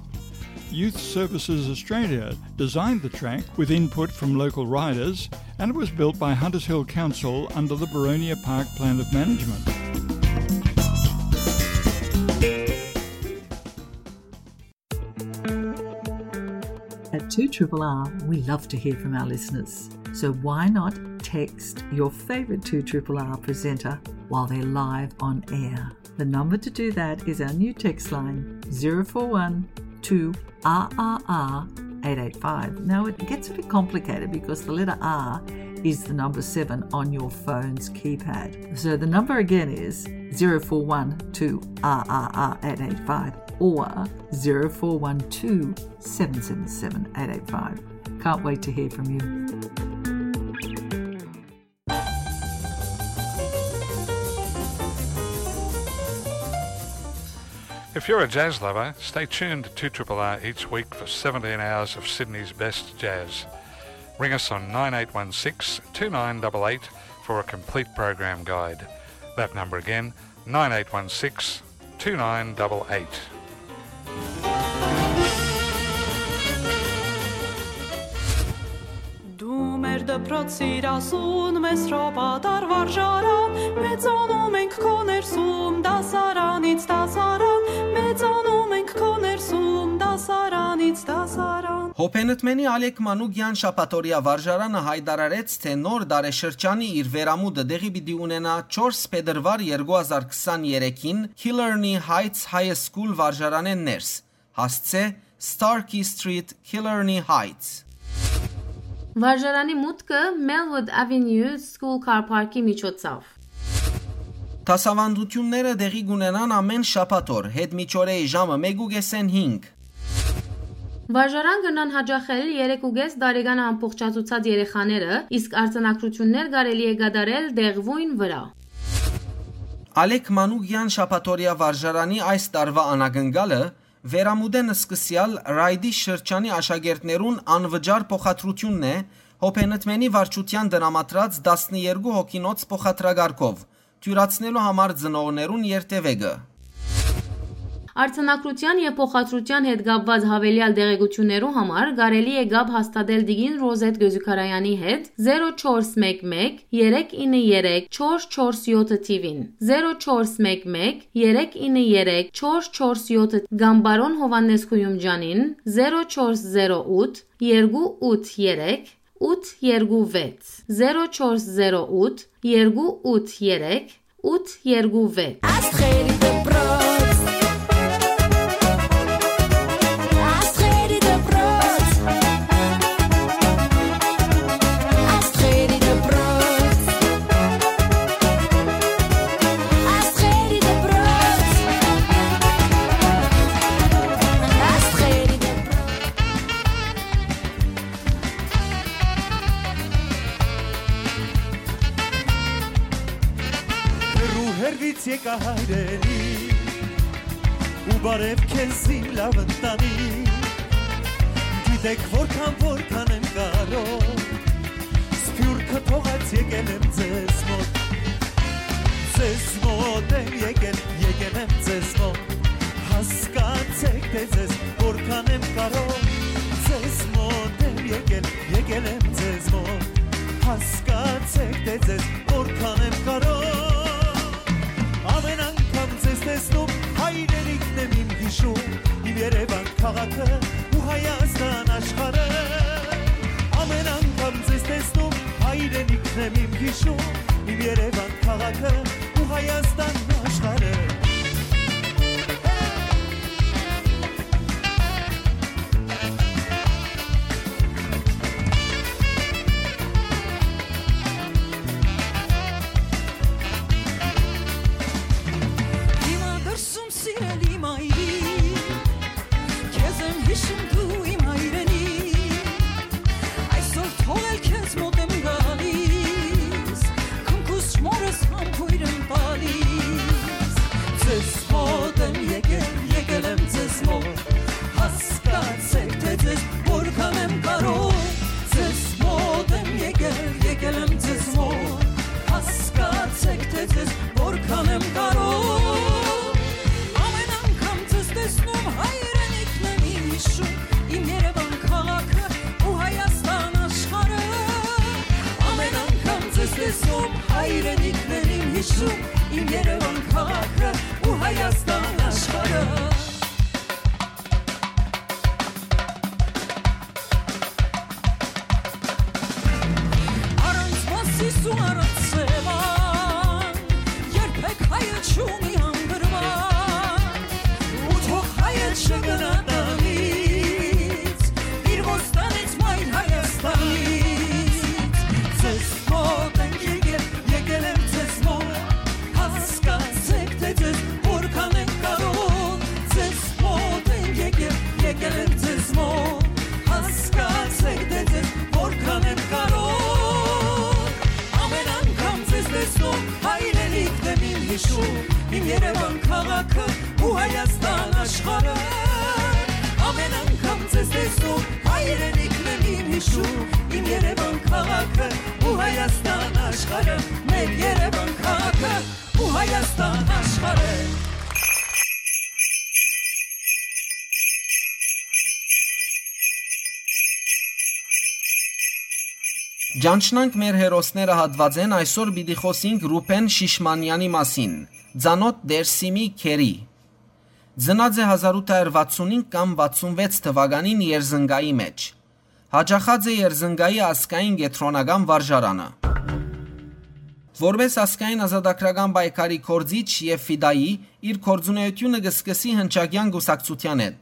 Youth Services Australia designed the track with input from local riders, and it was built by Hunters Hill Council under the Boronia Park Plan of Management. At two R R R, we love to hear from our listeners. So why not text your favourite two R R R presenter while they're live on air? The number to do that is our new text line, zero four one two R R R eight eight five. Now, it gets a bit complicated because the letter R is the number seven on your phone's keypad. So the number again is zero four one two R R R eight eight five or zero four one two seven seven seven eight eight five. Can't wait to hear from you. If you're a jazz lover, stay tuned to two R R R each week for seventeen hours of Sydney's best jazz. Ring us on nine eight one six two nine eight eight for a complete program guide. That number again, nine eight one six two nine eight eight. Դու մեր դպրոցիր ասուն, մեզ հրապատար վարժարան, մեծանում ենք քո ներսում, դասարանից դասարան, մեծանում ենք քո ներսում, դասարանից դասարան։ Հոփենտմենի Ալեք Մանուկեան շաբաթօրեայ վարժարանը յայտարարեց, թէ նոր տարեշրջանի իր վերամուտը տեղի պիտի ունենայ չորս փետրուար երկու հազար քսաներեքին Killarney Heights High School վարժարանէն ներս։ հասցէ Starkey Street, Killarney Heights։ Վարժարանի մուտքը Melwood Avenue School Car Park-ի միջոցով։ Դասաւանդութիւնները տեղի կ'ունենան ամէն շաբաթօր, յետ միջօրեի ժամը մէկ ու կէսէն հինգ։ Վարժարան կրնան յաճախել երեք ու կէս տարեկան ամբողջացուցած երեխաները, իսկ արձանագրութիւններ կարելի է կատարել տեղւոյն վրայ։ Ալեք Մանուկեան շաբաթօրեայ վարժարանի այս տարուայ անակնկալը վերամուտէն սկսեալ Ռայդի շրջանի աշակերտներուն անվճար փոխադրութիւնն է Հոփենտմենի վարչութեան տրամադրած տասներկու հոգինոց փոխադրակառքով, թիւրացնելու համար ծնողներուն երթեւեկը։ Արձանագրութեան եւ փոխադրութեան հետ կապուած յաւելեալ տեղեկութիւններու համար կարելի է կապ հաստատել տիկին Ռոզեթ Գոզուքարեանի հետ, զերո չորս մէկ մէկ, երեք ինը երեք, չորս չորս յոթը թիւին, զերո չորս մէկ մէկ, երեք ինը երեք, չորս չորս յոթը, կամ պարոն Յովհաննէս Գոյումճանին, զերո չորս զերո ութ, երկու ութ երեք, ութ երկու վեց, զերո չորս զերո ութ, երկու ութ երեք, ութ երկու վեց։ Աստղերի դպրոց։ Աստղերի դպրոց։ Աստղերի դպրոց։ Աստղերի դպրոց։ Աստղերի դպրոց։ Հեռու հեռվից եկայ հայրենի, ու բարև քեզ իմ լաւ ընտանի։ Գիտեք որքան, որքան եմ կարող, սփիւռքը թողած եկել եմ ձեզ մոտ։ Ձեզ մոտ եմ եկել, եկել եմ ձեզ մոտ, հասկացեք, թե ձեզ որքան եմ կարող։ Ձեզ մոտ եմ եկել, եկել եմ ձեզ մոտ, հասկացեք, թե ձեզ որքան եմ կարող։ Ամեն անգամ ձեզ տեսնում, հայրենիքն եմ իմ հիշում, իմ Երևան քաղաքը ու Հայաստան աշխարհը։ Ամեն անգամ ձեզ տեսնում, հայրենիքն եմ իմ հիշում, իմ Երևան քաղաքը ու Հայաստան աշխարհը։ Հիմա դրսում սիրելի մայրիկ, քեզ եմ հիշում դու իմ հայրենի, այսօր թողել քեզ մոտ եմ գալիս, քնքուշ մորս համբույր եմ տալիս։ Ձեզ մոտ եմ եկել, եկել եմ ձեզ մոտ, հասկացեք, թե ձեզ որքան եմ կարող։ Ձեզ մոտ եմ եկել, եկել եմ ձեզ մոտ, հասկացեք, թե ձեզ որքան եմ կարող։ Ամեն անգամ ձեզ տեսնում, հայրենիքն եմ իմ հիշում, իմ Երևան քաղաքը ու Հայաստան աշխարհը։ Ամեն անգամ ձեզ տեսնում, հայրենիքն եմ իմ հիշում, իմ Երևան քաղաքը ու Հայաստան աշխարհը։ Առանց Մասիս ու առանց Սեւան, երբեք հայը չունի հանգրուան, ու թող հայը չգնա տանից, իր ոստանից մայր Հայաստանից։ Ձեզ մոտ ենք եկել, եկել ենք ձեզ մոտ, հասկացեք, թե ձեզ որքան ենք կարող, ձեզ մոտ ենք եկել, եկել ենք ձեզ մոտ, հասկացեք, թե ձեզ որքան ենք կարող։ Ամեն անգամ ձեզ տեսնում, հայրենիքն եմ իմ հիշում, իմ Երևան քաղաքը ու Հայաստան աշխարհը։ Ամեն անգամ ձեզ տեսնում, հայրենիքն եմ իմ հիշում, իմ Երևան քաղաքը ու Հայաստան աշխարհը, մեր Երևան քաղաքը ու Հայաստան աշխարհը։ Ճանչնանք մեր հերոսները հատվածեն, այսօր պիտի խոսենք Ռուբեն Շիշմանյանի մասին, ծանօթ Դերսիմի Քերի։ Ծնած է հազար ութ հարյուր վաթսուն հինգ կամ վաթսուն վեց թվականին Երզնկայի մէջ։ Յաճախած է Երզնկայի ազգային կեդրոնական վարժարանը։ Որպէս ազգային ազատագրական պայքարի գործիչ եւ ֆիդայի, իր գործունեութիւնը կը սկսի Հնչակեան կուսակցութեան հետ։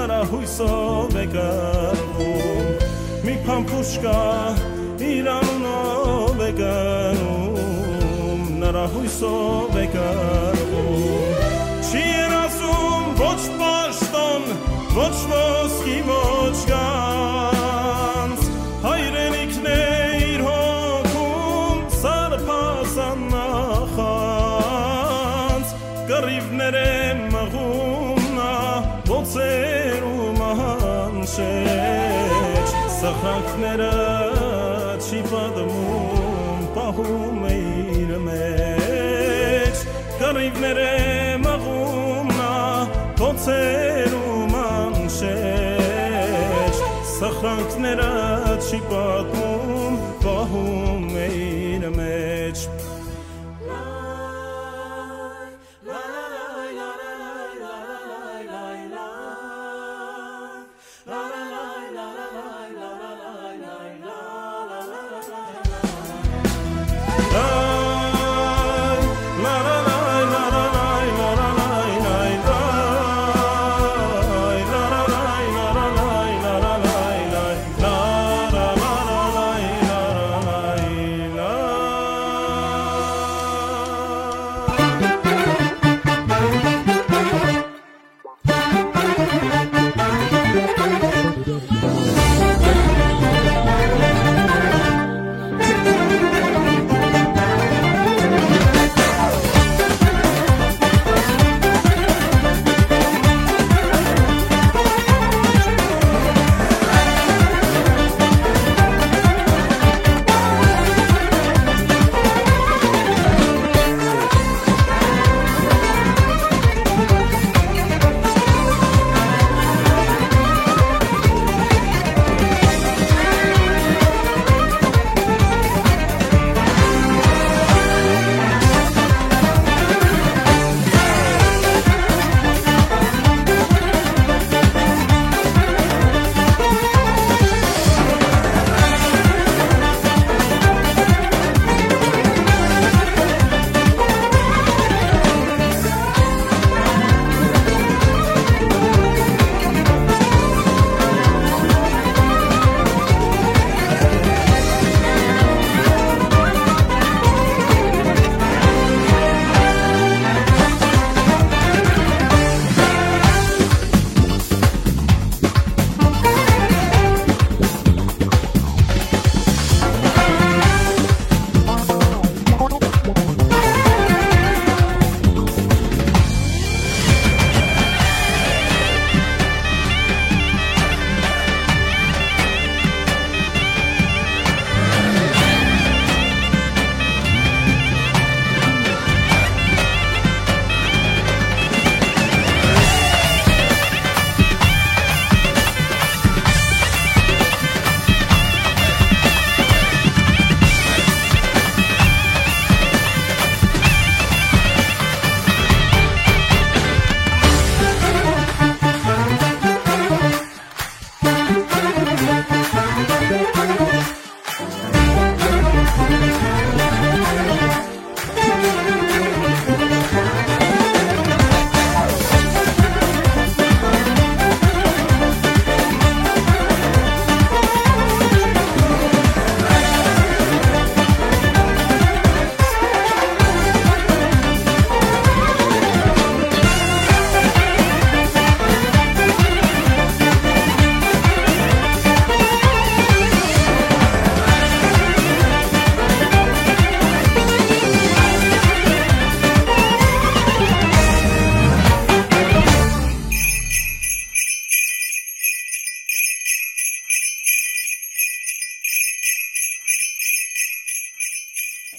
Հուսով է կռվում, մի փամփուշկա իր անունով է կնում, նրա հույսով է կռվում։ Չի երազում ոչ պաշտոն, ոչ ոսկի, ոչ գանձ, հայրենիքն է իր հոգում սարսափազան նախանձ։ Կռիւներ է մղում նա բոցերու մանշէջ, սխրանքները չի պատմում, պահում է իր մեջ։ Կռիւներ է մղում նա բոցերու մանշէջ, սխրանքները չի պատմում, պահում է իր մեջ։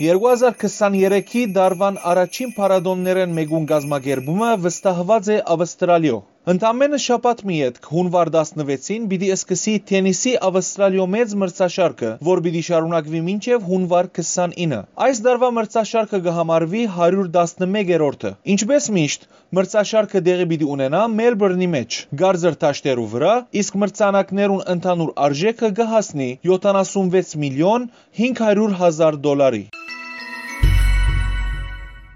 Երկու հազար քսաներեքի տարուան առաջին փառատօներէն մէկուն կազմակերպումը վստահուած է Ավստրալիոյ։ Ընդամենը շաբաթ մը ետք, հունուար տասնվեցին, պիտի սկսի թենիսի Ավստրալիոյ մեծ մրցաշարքը, որ պիտի շարունակուի մինչեւ հունուար քսանինը։ Այս տարուայ մրցաշարքը կը համարուի հարիւր տասնմեկերորդը։ Ինչպէս միշտ, մրցաշարքը տեղի պիտի ունենայ Մելբուրնի մէջ, կարծր դաշտերու վրայ, իսկ մրցանակներուն ընդհանուր արժէքը կը հասնի յոթանասունվեց միլիոն հինգ հարիւր հազար դոլարի։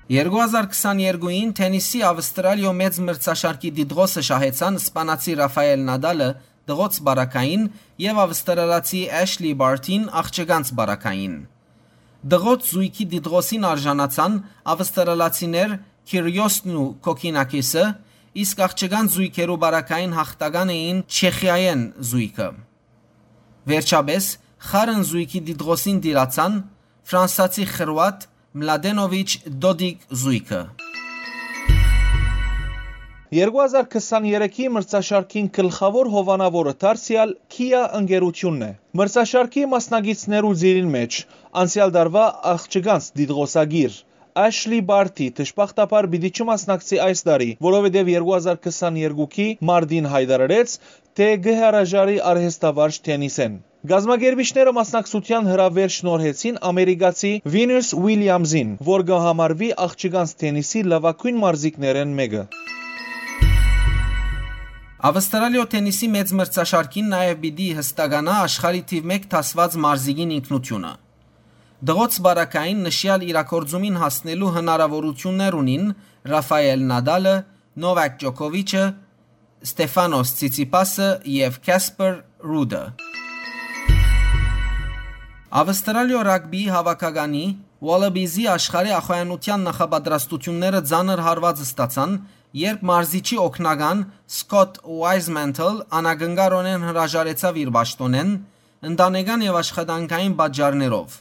Երկու հազար քսաներկուին թենիսի Ավստրալիոյ մեծ մրցաշարքի դիտղոսը շահեցան սպանացի Ռաֆայել Նադալը դղոց պարագային եւ ավստրալացի Էշլի Բարթին աղջկանց պարագային։ Դղոց զոյգի դիտղոսին արժանացան ավստրալացիներ Քիրիոսն ու Կոքինաքիսը, իսկ աղջկանց զոյգերու պարագային յաղթական էին Չեխիայէն զոյգը։ Վերջապէս, խառն զոյգի դիտղոսին տիրացան ֆրանսացի խրուատ Մլադենովիչ Դոդիկ զոյգը։ Երկու հազար քսաներեքի մրցաշարքին գլխաւոր հովանաւորը դարձեալ Kia ընկերութիւնն է։ Մրցաշարքի մասնակիցներու ծիրին մէջ անցեալ տարուայ աղջկանց դիտղոսակիր Էշլի Բարթի դժբախտաբար պիտի չմասնակցի այս տարի, որովհետեւ երկու հազար քսաներկուքի մարտին յայտարարեց, թէ կը հրաժարի արհեստավարժ թենիսէն։ Կազմակերպիչները մասնակցութեան հրաւէր շնորհեցին ամերիկացի Վինուս Ուիլյամզին, որ կը համարուի աղջկանց թենիսի լաւագոյն մարզիկներէն մէկը։ Ավստրալիոյ թենիսի մեծ մրցաշարքին նաեւ պիտի յստականայ աշխարհի թիւ մէկ դասուած մարզիկին ինքնութիւնը։ Դղոց պարագային նշեալ իրագործումին հասնելու հնարաւորութիւններ ունին Ռաֆայել Նադալը, Նովակ Ջոկովիչը, Ստեֆանոս Ցիցիպասը եւ Քասպեր Ռուդը։ Ավստրալիոյ ռագբիի հաւաքականի Ուալաբիզի աշխարհի ախոյանութեան նախապատրաստութիւնները ծանր հարուած ստացան, երբ մարզիչի օգնական Սկոթ Ուայզմենթլ անակնկարօնէն հրաժարեցաւ իր պաշտօնէն, ընտանեկան եւ աշխատանքային պատճառներով,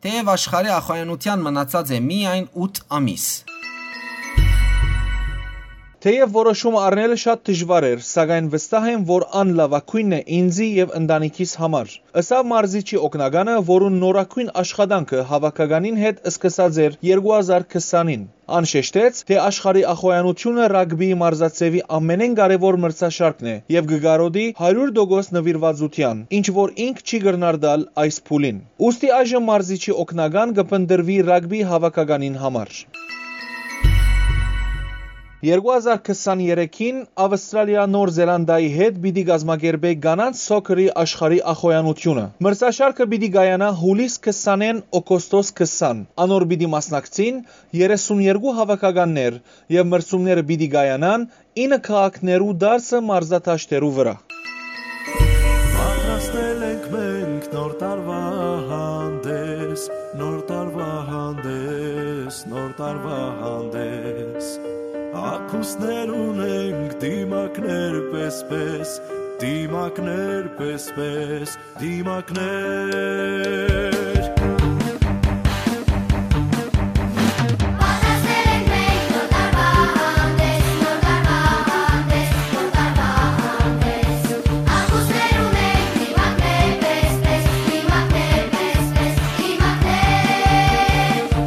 թէեւ աշխարհի ախոյանութեան մնացած է միայն ութ ամիս։ Թէեւ որոշում առնելը շատ դժուար էր, սակայն վստահ եմ, որ ան լաւագոյնն է ինծի եւ ընտանիքիս համար, ըսաւ մարզիչի օգնականը, որուն նորագոյն աշխատանքը հաւաքականին հետ սկսած էր երկու հազար քսանին։ Ան շեշտեց, թէ աշխարհի ախոյանութիւնը ռագբիի մարզաձեւի ամենէն կարեւոր մրցաշարքն է եւ կը կարօտի հարիւր տոկոս նուիրուածութեան, ինչ որ ինք չի կրնար տալ այս փուլին։ Ուստի այժմ մարզիչի օգնական կը փնտռուի ռագբի հաւաքականին համար։ Երկու հազար քսաներեքին Ավստրալիա Նոր Զելանդիայի հետ պիտի կազմակերպէ կանանց սոքերի աշխարհի ախոյանութիւնը։ Մրցաշարքը պիտի կայանայ յուլիս քսանէն օգոստոս քսան։ Անոր պիտի մասնակցին երեսուն երկու հաւաքականներ եւ մրցումները պիտի կայանան ինը քաղաքներու տասը մարզադաշտերու վրայ։ Պատրաստել ենք մենք նոր տարուայ հանդես, նոր տարուայ հանդես, նոր տարուայ հանդես։ Ակուսներ ունենք, դիմակներ պես-պես, դիմակներ պես-պես, դիմակներ։ Պատրաստել ենք մենք նոր տարուայ հանդես, նոր տարուայ հանդես, նոր տարուայ հանդես։ Ակուսներ ունենք, դիմակներ պես-պես, դիմակներ պես-պես, դիմակներ։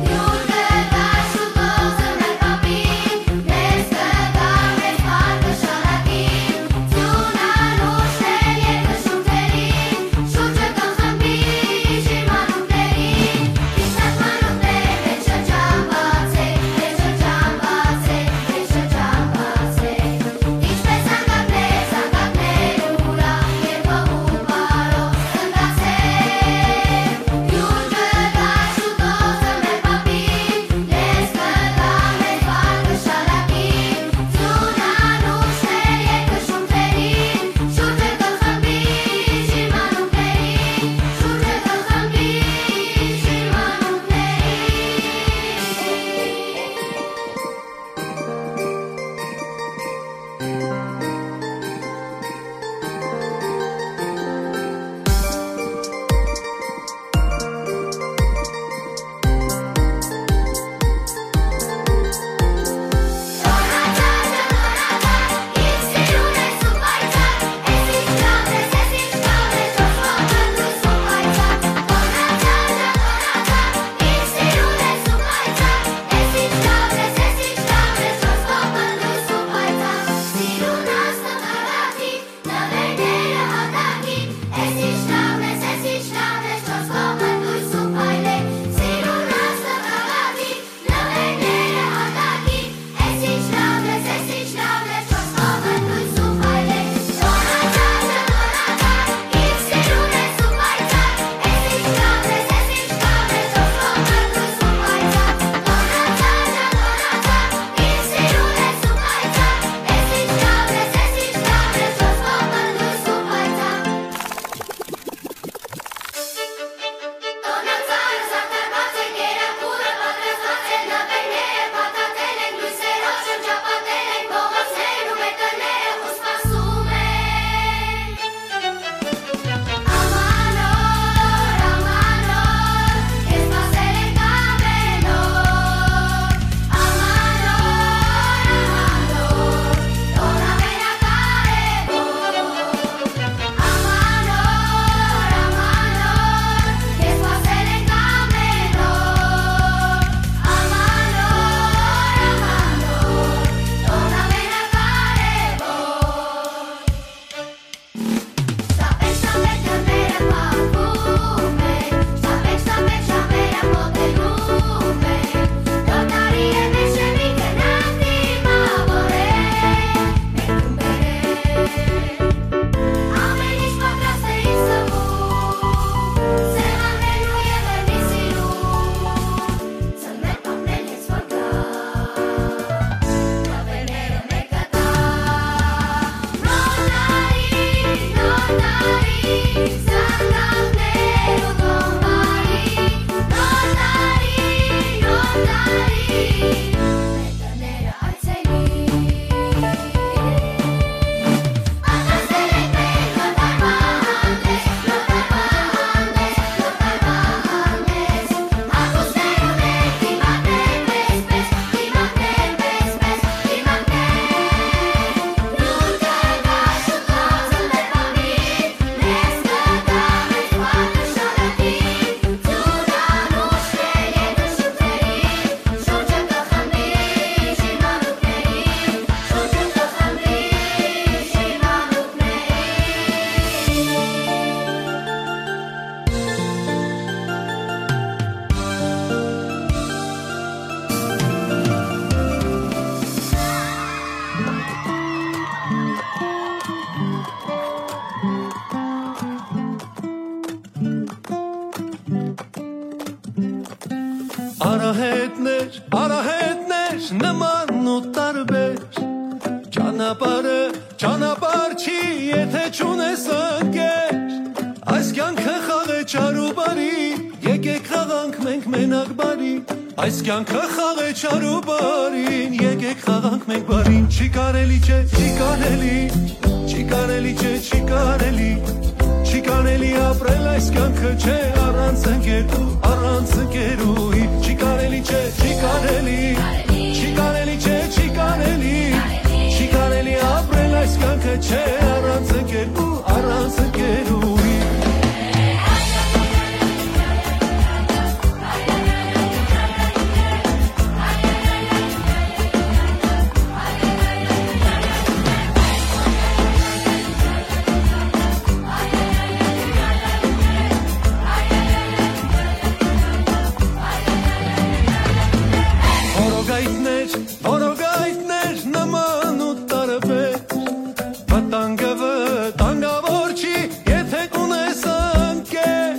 Յուր կը գայ շուտով զմրել կապին, մեզ կը գայ մեծ բառ կը շարակին, ձիւն անուշ է երկրի շունչերին, շունչը կը խմբի շիրմանունքների, Եթէ չունես ընկեր, այս կեանքը խաղէ չար ու բարի, եկեք խաղանք մենք մենակ բարի, այս կեանքը խաղէ չար ու բարին, եկեք խաղանք մենք բարին, չի կարելի, չէ, չի կարելի, չի կարելի, չէ, չի կարելի, չի կարելի ապրել այս կեանքը, չէ, առանց ընկեր ու առանց ընկերուհի, չի կարելի, չէ, չի կարելի, չի կարելի, չէ, չի կարելի, չի կարելի ապրել այս կեանքը, չէ, առանց ընկեր ու առանց ընկերուհի։ Որոգայթներ, որոգայթներ նման ու տարբեր, վտանգը վտանգավոր չի, եթէ կունես ընկեր։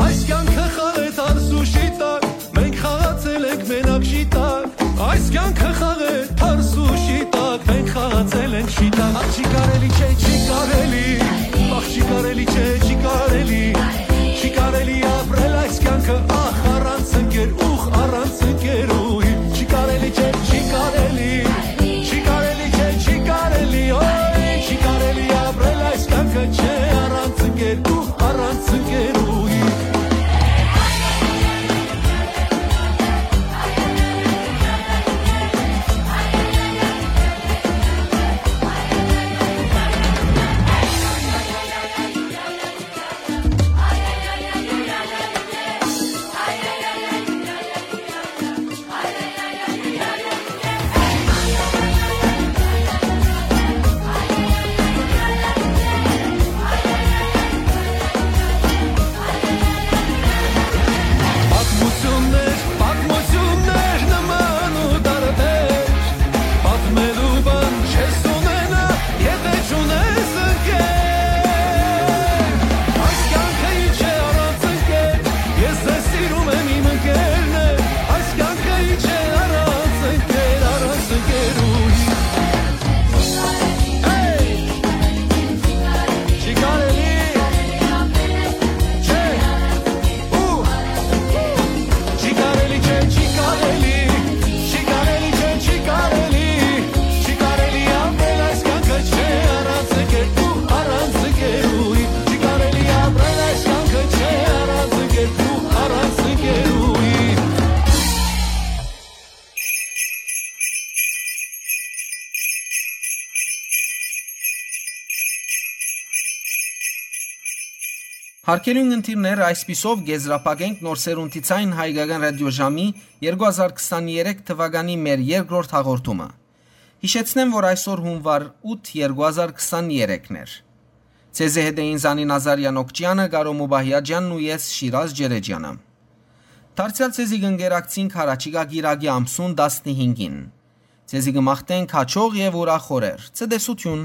Այս կեանքը խաղ է թարս ու շիտակ, մենք խաղացել ենք մենակ շիտակ։ Այս կեանքը խաղ է թարս ու շիտակ, մենք խաղացել ենք շիտակ։ Ախ, չի կարելի, չէ, չի կարելի, ախ, չի կարելի, չէ, չի կարելի, չի կարելի ապրել այս կեանքը, ախ, առանց ընկեր, ուխ, առանց ընկերուհի, չի կարելի, չէ, չի կարելի, չի կարելի, չէ, չի կարելի, օյ, չի կարելի ապրել այս կեանքը, չէ, առանց ընկեր, ուխ, առանց ընկերուհի։ Պատմություններ, պատմություններ նման ու տարբեր, պատմելու բան չես ունենա, եթէ չունես ընկեր։ Այս կեանքը ինչ է առանց ընկեր, ես ձեզ սիրում եմ, իմ ընկերներ, այս կեանքը ինչ է առանց ընկեր, առանց ընկերուհի։ Հեյ! Չի կարելի, չէ, ու, չի կարելի, չէ, չի կարելի, չի կարելի, չէ, չի կարելի, չի կարելի ապրել այս կեանքը, չէ, առանց ընկերու, առանց ընկերուհի, չի կարելի ապրել այս կեանքը, չէ, առանց ընկերու, առանց ընկերուհի։ Հարգելի ունգընտիրներ, այսպիսով կ'եզրափակենք Նոր Սերունդի Ցայն հայկական ռադիոժամի երկու հազար քսաներեք թվականի մեր երկրորդ հաղորդումը։ Յիշեցնեմ, որ այսօր հունուար ութ երկու հազար քսաներեքն էր։ Ձեզի հետ էին Զանի Նազարյան Օքճյանը, Կարո Մուբահյաջյանն ու ես, Շիրազ Ջերեջյանը։ Դարձեալ ձեզի կ'ընկերակցինք յառաջիկայ կիրակի ամսուն տասնհինգին։ Ձեզի կը մաղթենք հաճող եւ ուրախ օրեր։ Ցտեսութիւն։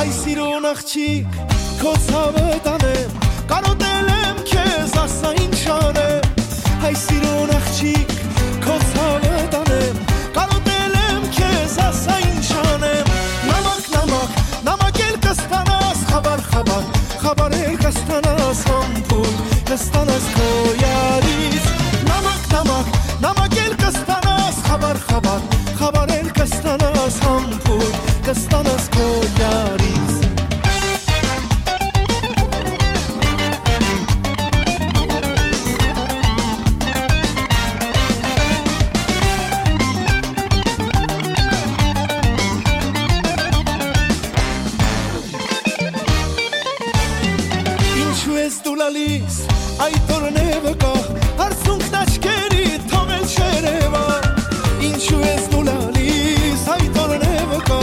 Այ սիրուն աղջիկ, քո ցաւը տանեմ, կարոտել եմ քեզ, ասա ինչ անեմ։ Այ սիրուն աղջիկ, քո ցաւը տանեմ, կարոտել եմ քեզ, ասա ինչ անեմ։ Նամակ, նամակ, նամակ էլ կստանաս, խաբար, խաբար, խաբար էլ կստանաս, համբույր կստանաս քո յարից։ Նամակ, նամակ, նամակ էլ կստանաս, խաբար, խաբար, խաբար էլ կստանաս, համբույր կստանաս քո յարից։ Ինչու ես դու լալիս, այդ օրն է վկա, արցունքն աչքերի թողել չերևա։ Ինչու ես դու լալիս, այդ օրն է վկա,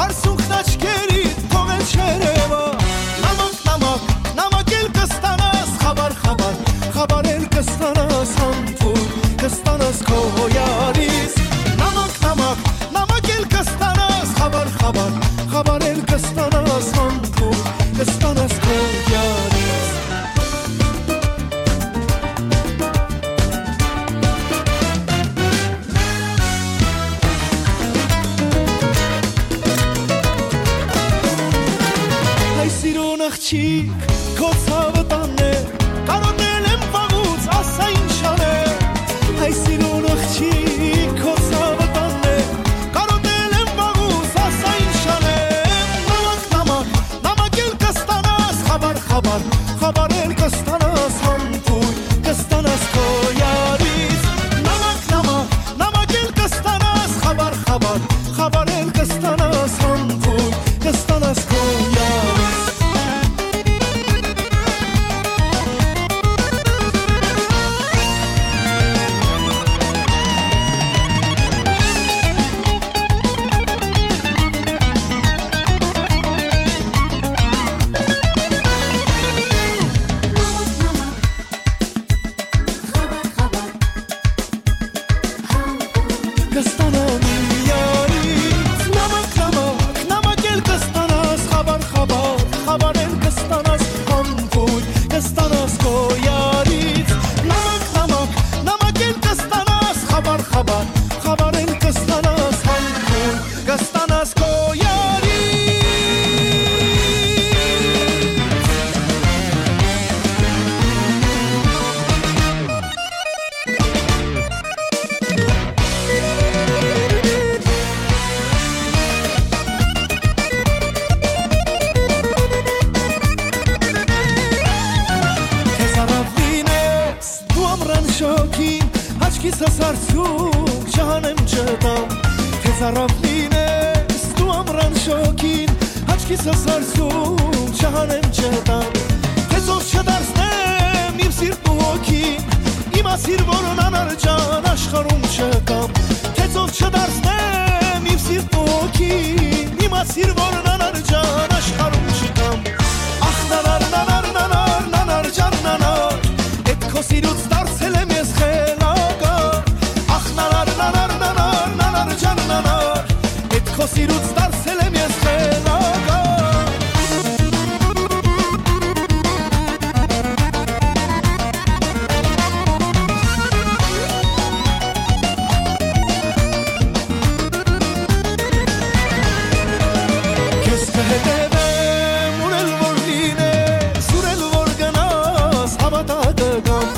արցունքն աչքերի թողել չերևա։ Նամակ, նամակ, նամակ էլ կստանաս, խաբար, խաբար, խաբար էլ կստանաս, համբույր կստանաս քո յարից։ Նամակ, նամակ, նամակ էլ կստանաս, խաբար, խաբար, խաբար էլ կստանաս, համբույր կստանաս քո Քո ցաւը տաննե, կարոտել եմ վաղուց, ասա ինչ անեմ։ Հայ սիրուն աղջիկ, քո ցաւը տաննե, կարոտել եմ վաղուց, ասա ինչ անեմ։ Նամակ, նամակ, նամակ էլ կստանաս, խաբար, խաբար, խաբար էլ կստանաս, համբույր կստանաս քո յարից։ Նամակ, նամակ, նամակ էլ կստանաս, խաբար, խաբար, խաբար էլ կստանաս, համբույր կստանաս քո յարից։ Կստանամ իմ յարից նամակ, նամակ, նամակ էլ կստանաս, խաբար, խաբար, խաբար էլ կստանաս, համբույր կստանաս քո յարից։ Նամակ, նամակ, նամակ էլ կստանաս, խաբար, խաբար, խաբար էլ կստանաս, համբույր կստանաս քո յարից։ Դու ամրան շոգին, աչքիս ասարցում, չհանեմ չտամ, թե ծարաւ լինես, դու ամրան շոգին, աչքիս ասարցում, չհանեմ չտամ, թե ծով չդարձնեմ իմ սիրտն ու հոգին, իմ ասիր որն անար ջան աշխարհում չկամ, թե ծով չդարձնեմ իմ սիրտն ու հոգին, իմ ասիր որն անար ջան աշխարհում չկամ, ախ նանար, նանար, նանար, նանար ջան նանար, Էդ քո սիրուց դարձել եմ ես խելագար, ախ նանար, նանար, նանար, նանար ջան նանար, էդ քո սիրուց դարձել եմ ես խելագար։ Քեզ կհետևեմ, ուր էլ որ լինես, ուր էլ որ գնաս, հավատա կգամ։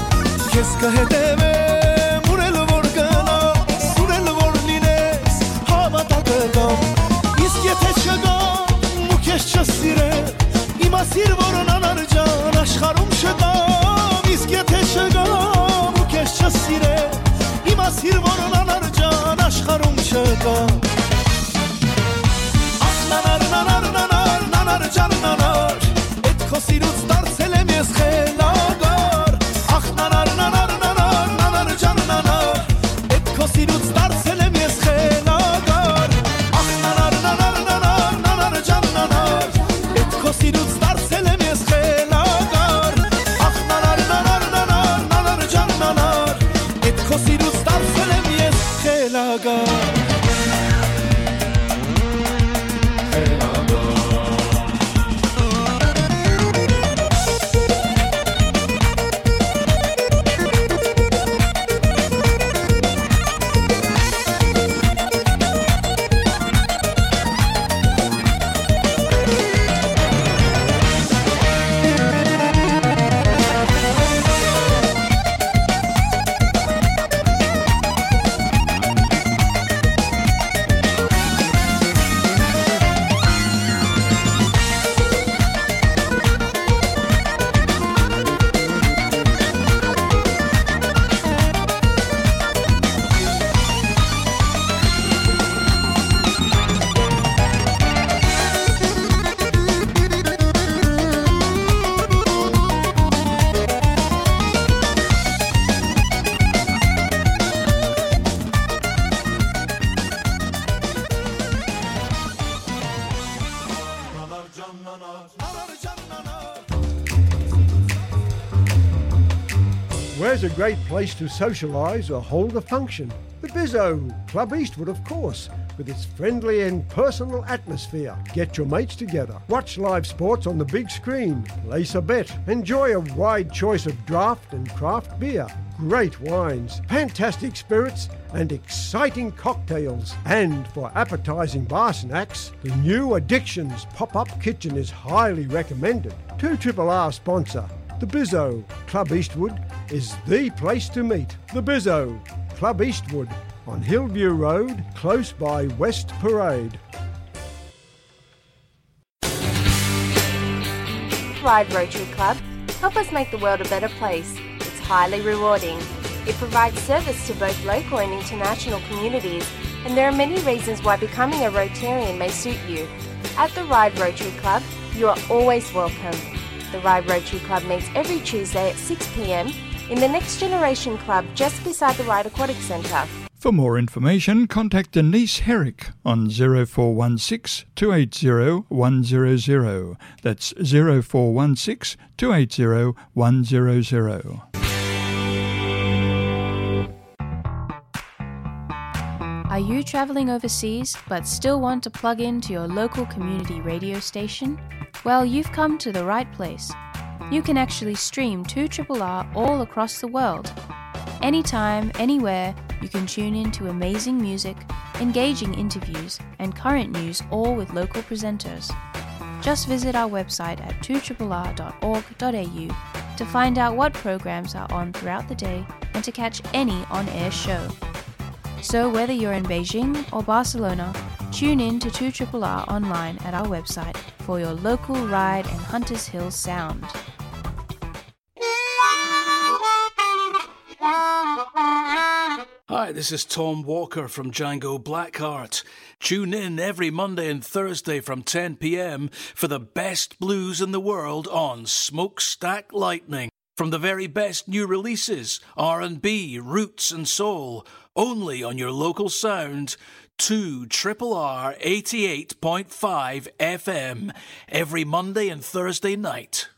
Քեզ կհետևեմ, ուր էլ որ գնաս, ուր էլ որ լինես, հավատա կգամ։ Իսկ եթե չգամ ու քեզ չսիրեմ, իմացիր, որ անանար ջան աշխարհում չկամ։ Իսկ եթե չգամ ու քեզ չսիրեմ, իմացիր, որ անանար ջան աշխարհում չկամ։ Ախ նանար, նանար, նանար, նանար ջան նանար, էդ քո սիրուց դարձել եմ ես խելագար։ Ախ նանար, նանար, նանար, նանար ջան նանար, էդ քո սիրուց դարձել եմ ես խելագար։ Ախ նանար, նանար, նանար, նանար ջան նանար, էդ քո սիրուց դարձել եմ ես խելագար։ Ախ նանար, նանար, նանար, նանար ջան նանար, էդ քո սիրուց դարձել եմ ես խելագար։ Where's a great place to socialise or hold a function? The Bizzo, Club Eastwood, of course, with its friendly and personal atmosphere. Get your mates together, watch live sports on the big screen, place a bet, enjoy a wide choice of draft and craft beer. great wines, fantastic spirits, and exciting cocktails. And for appetizing bar snacks, the new Addictions pop-up kitchen is highly recommended. Two Triple R sponsor, the Bizzo. Club Eastwood is the place to meet. The Bizzo, Club Eastwood, on Hillview Road, close by West Parade. Ride Rotary Club. Help us make the world a better place. It's highly rewarding. It provides service to both local and international communities, and there are many reasons why becoming a Rotarian may suit you. At the Ride Rotary Club, you are always welcome. The Ride Rotary Club meets every Tuesday at six p.m. in the Next Generation Club just beside the Ride Aquatic Centre. For more information, contact Denise Herrick on zero four one six, two eight zero, one zero zero. That's zero four one six, two eight zero, one zero zero. Are you traveling overseas but still want to plug in to your local community radio station? Well, you've come to the right place. You can actually stream two triple R all across the world. Anytime, anywhere, you can tune in to amazing music, engaging interviews, and current news, all with local presenters. Just visit our website at two triple r dot org dot a u to find out what programs are on throughout the day and to catch any on-air show. So whether you're in Beijing or Barcelona, tune in to two triple R online at our website for your local Ride and Hunters Hill sound. Hi, this is Tom Walker from Django Blackheart. Tune in every Monday and Thursday from ten p.m. for the best blues in the world on Smokestack Lightning. From the very best new releases, R and B, roots and soul, only on your local sound, two triple R eighty-eight point five F M, every Monday and Thursday night.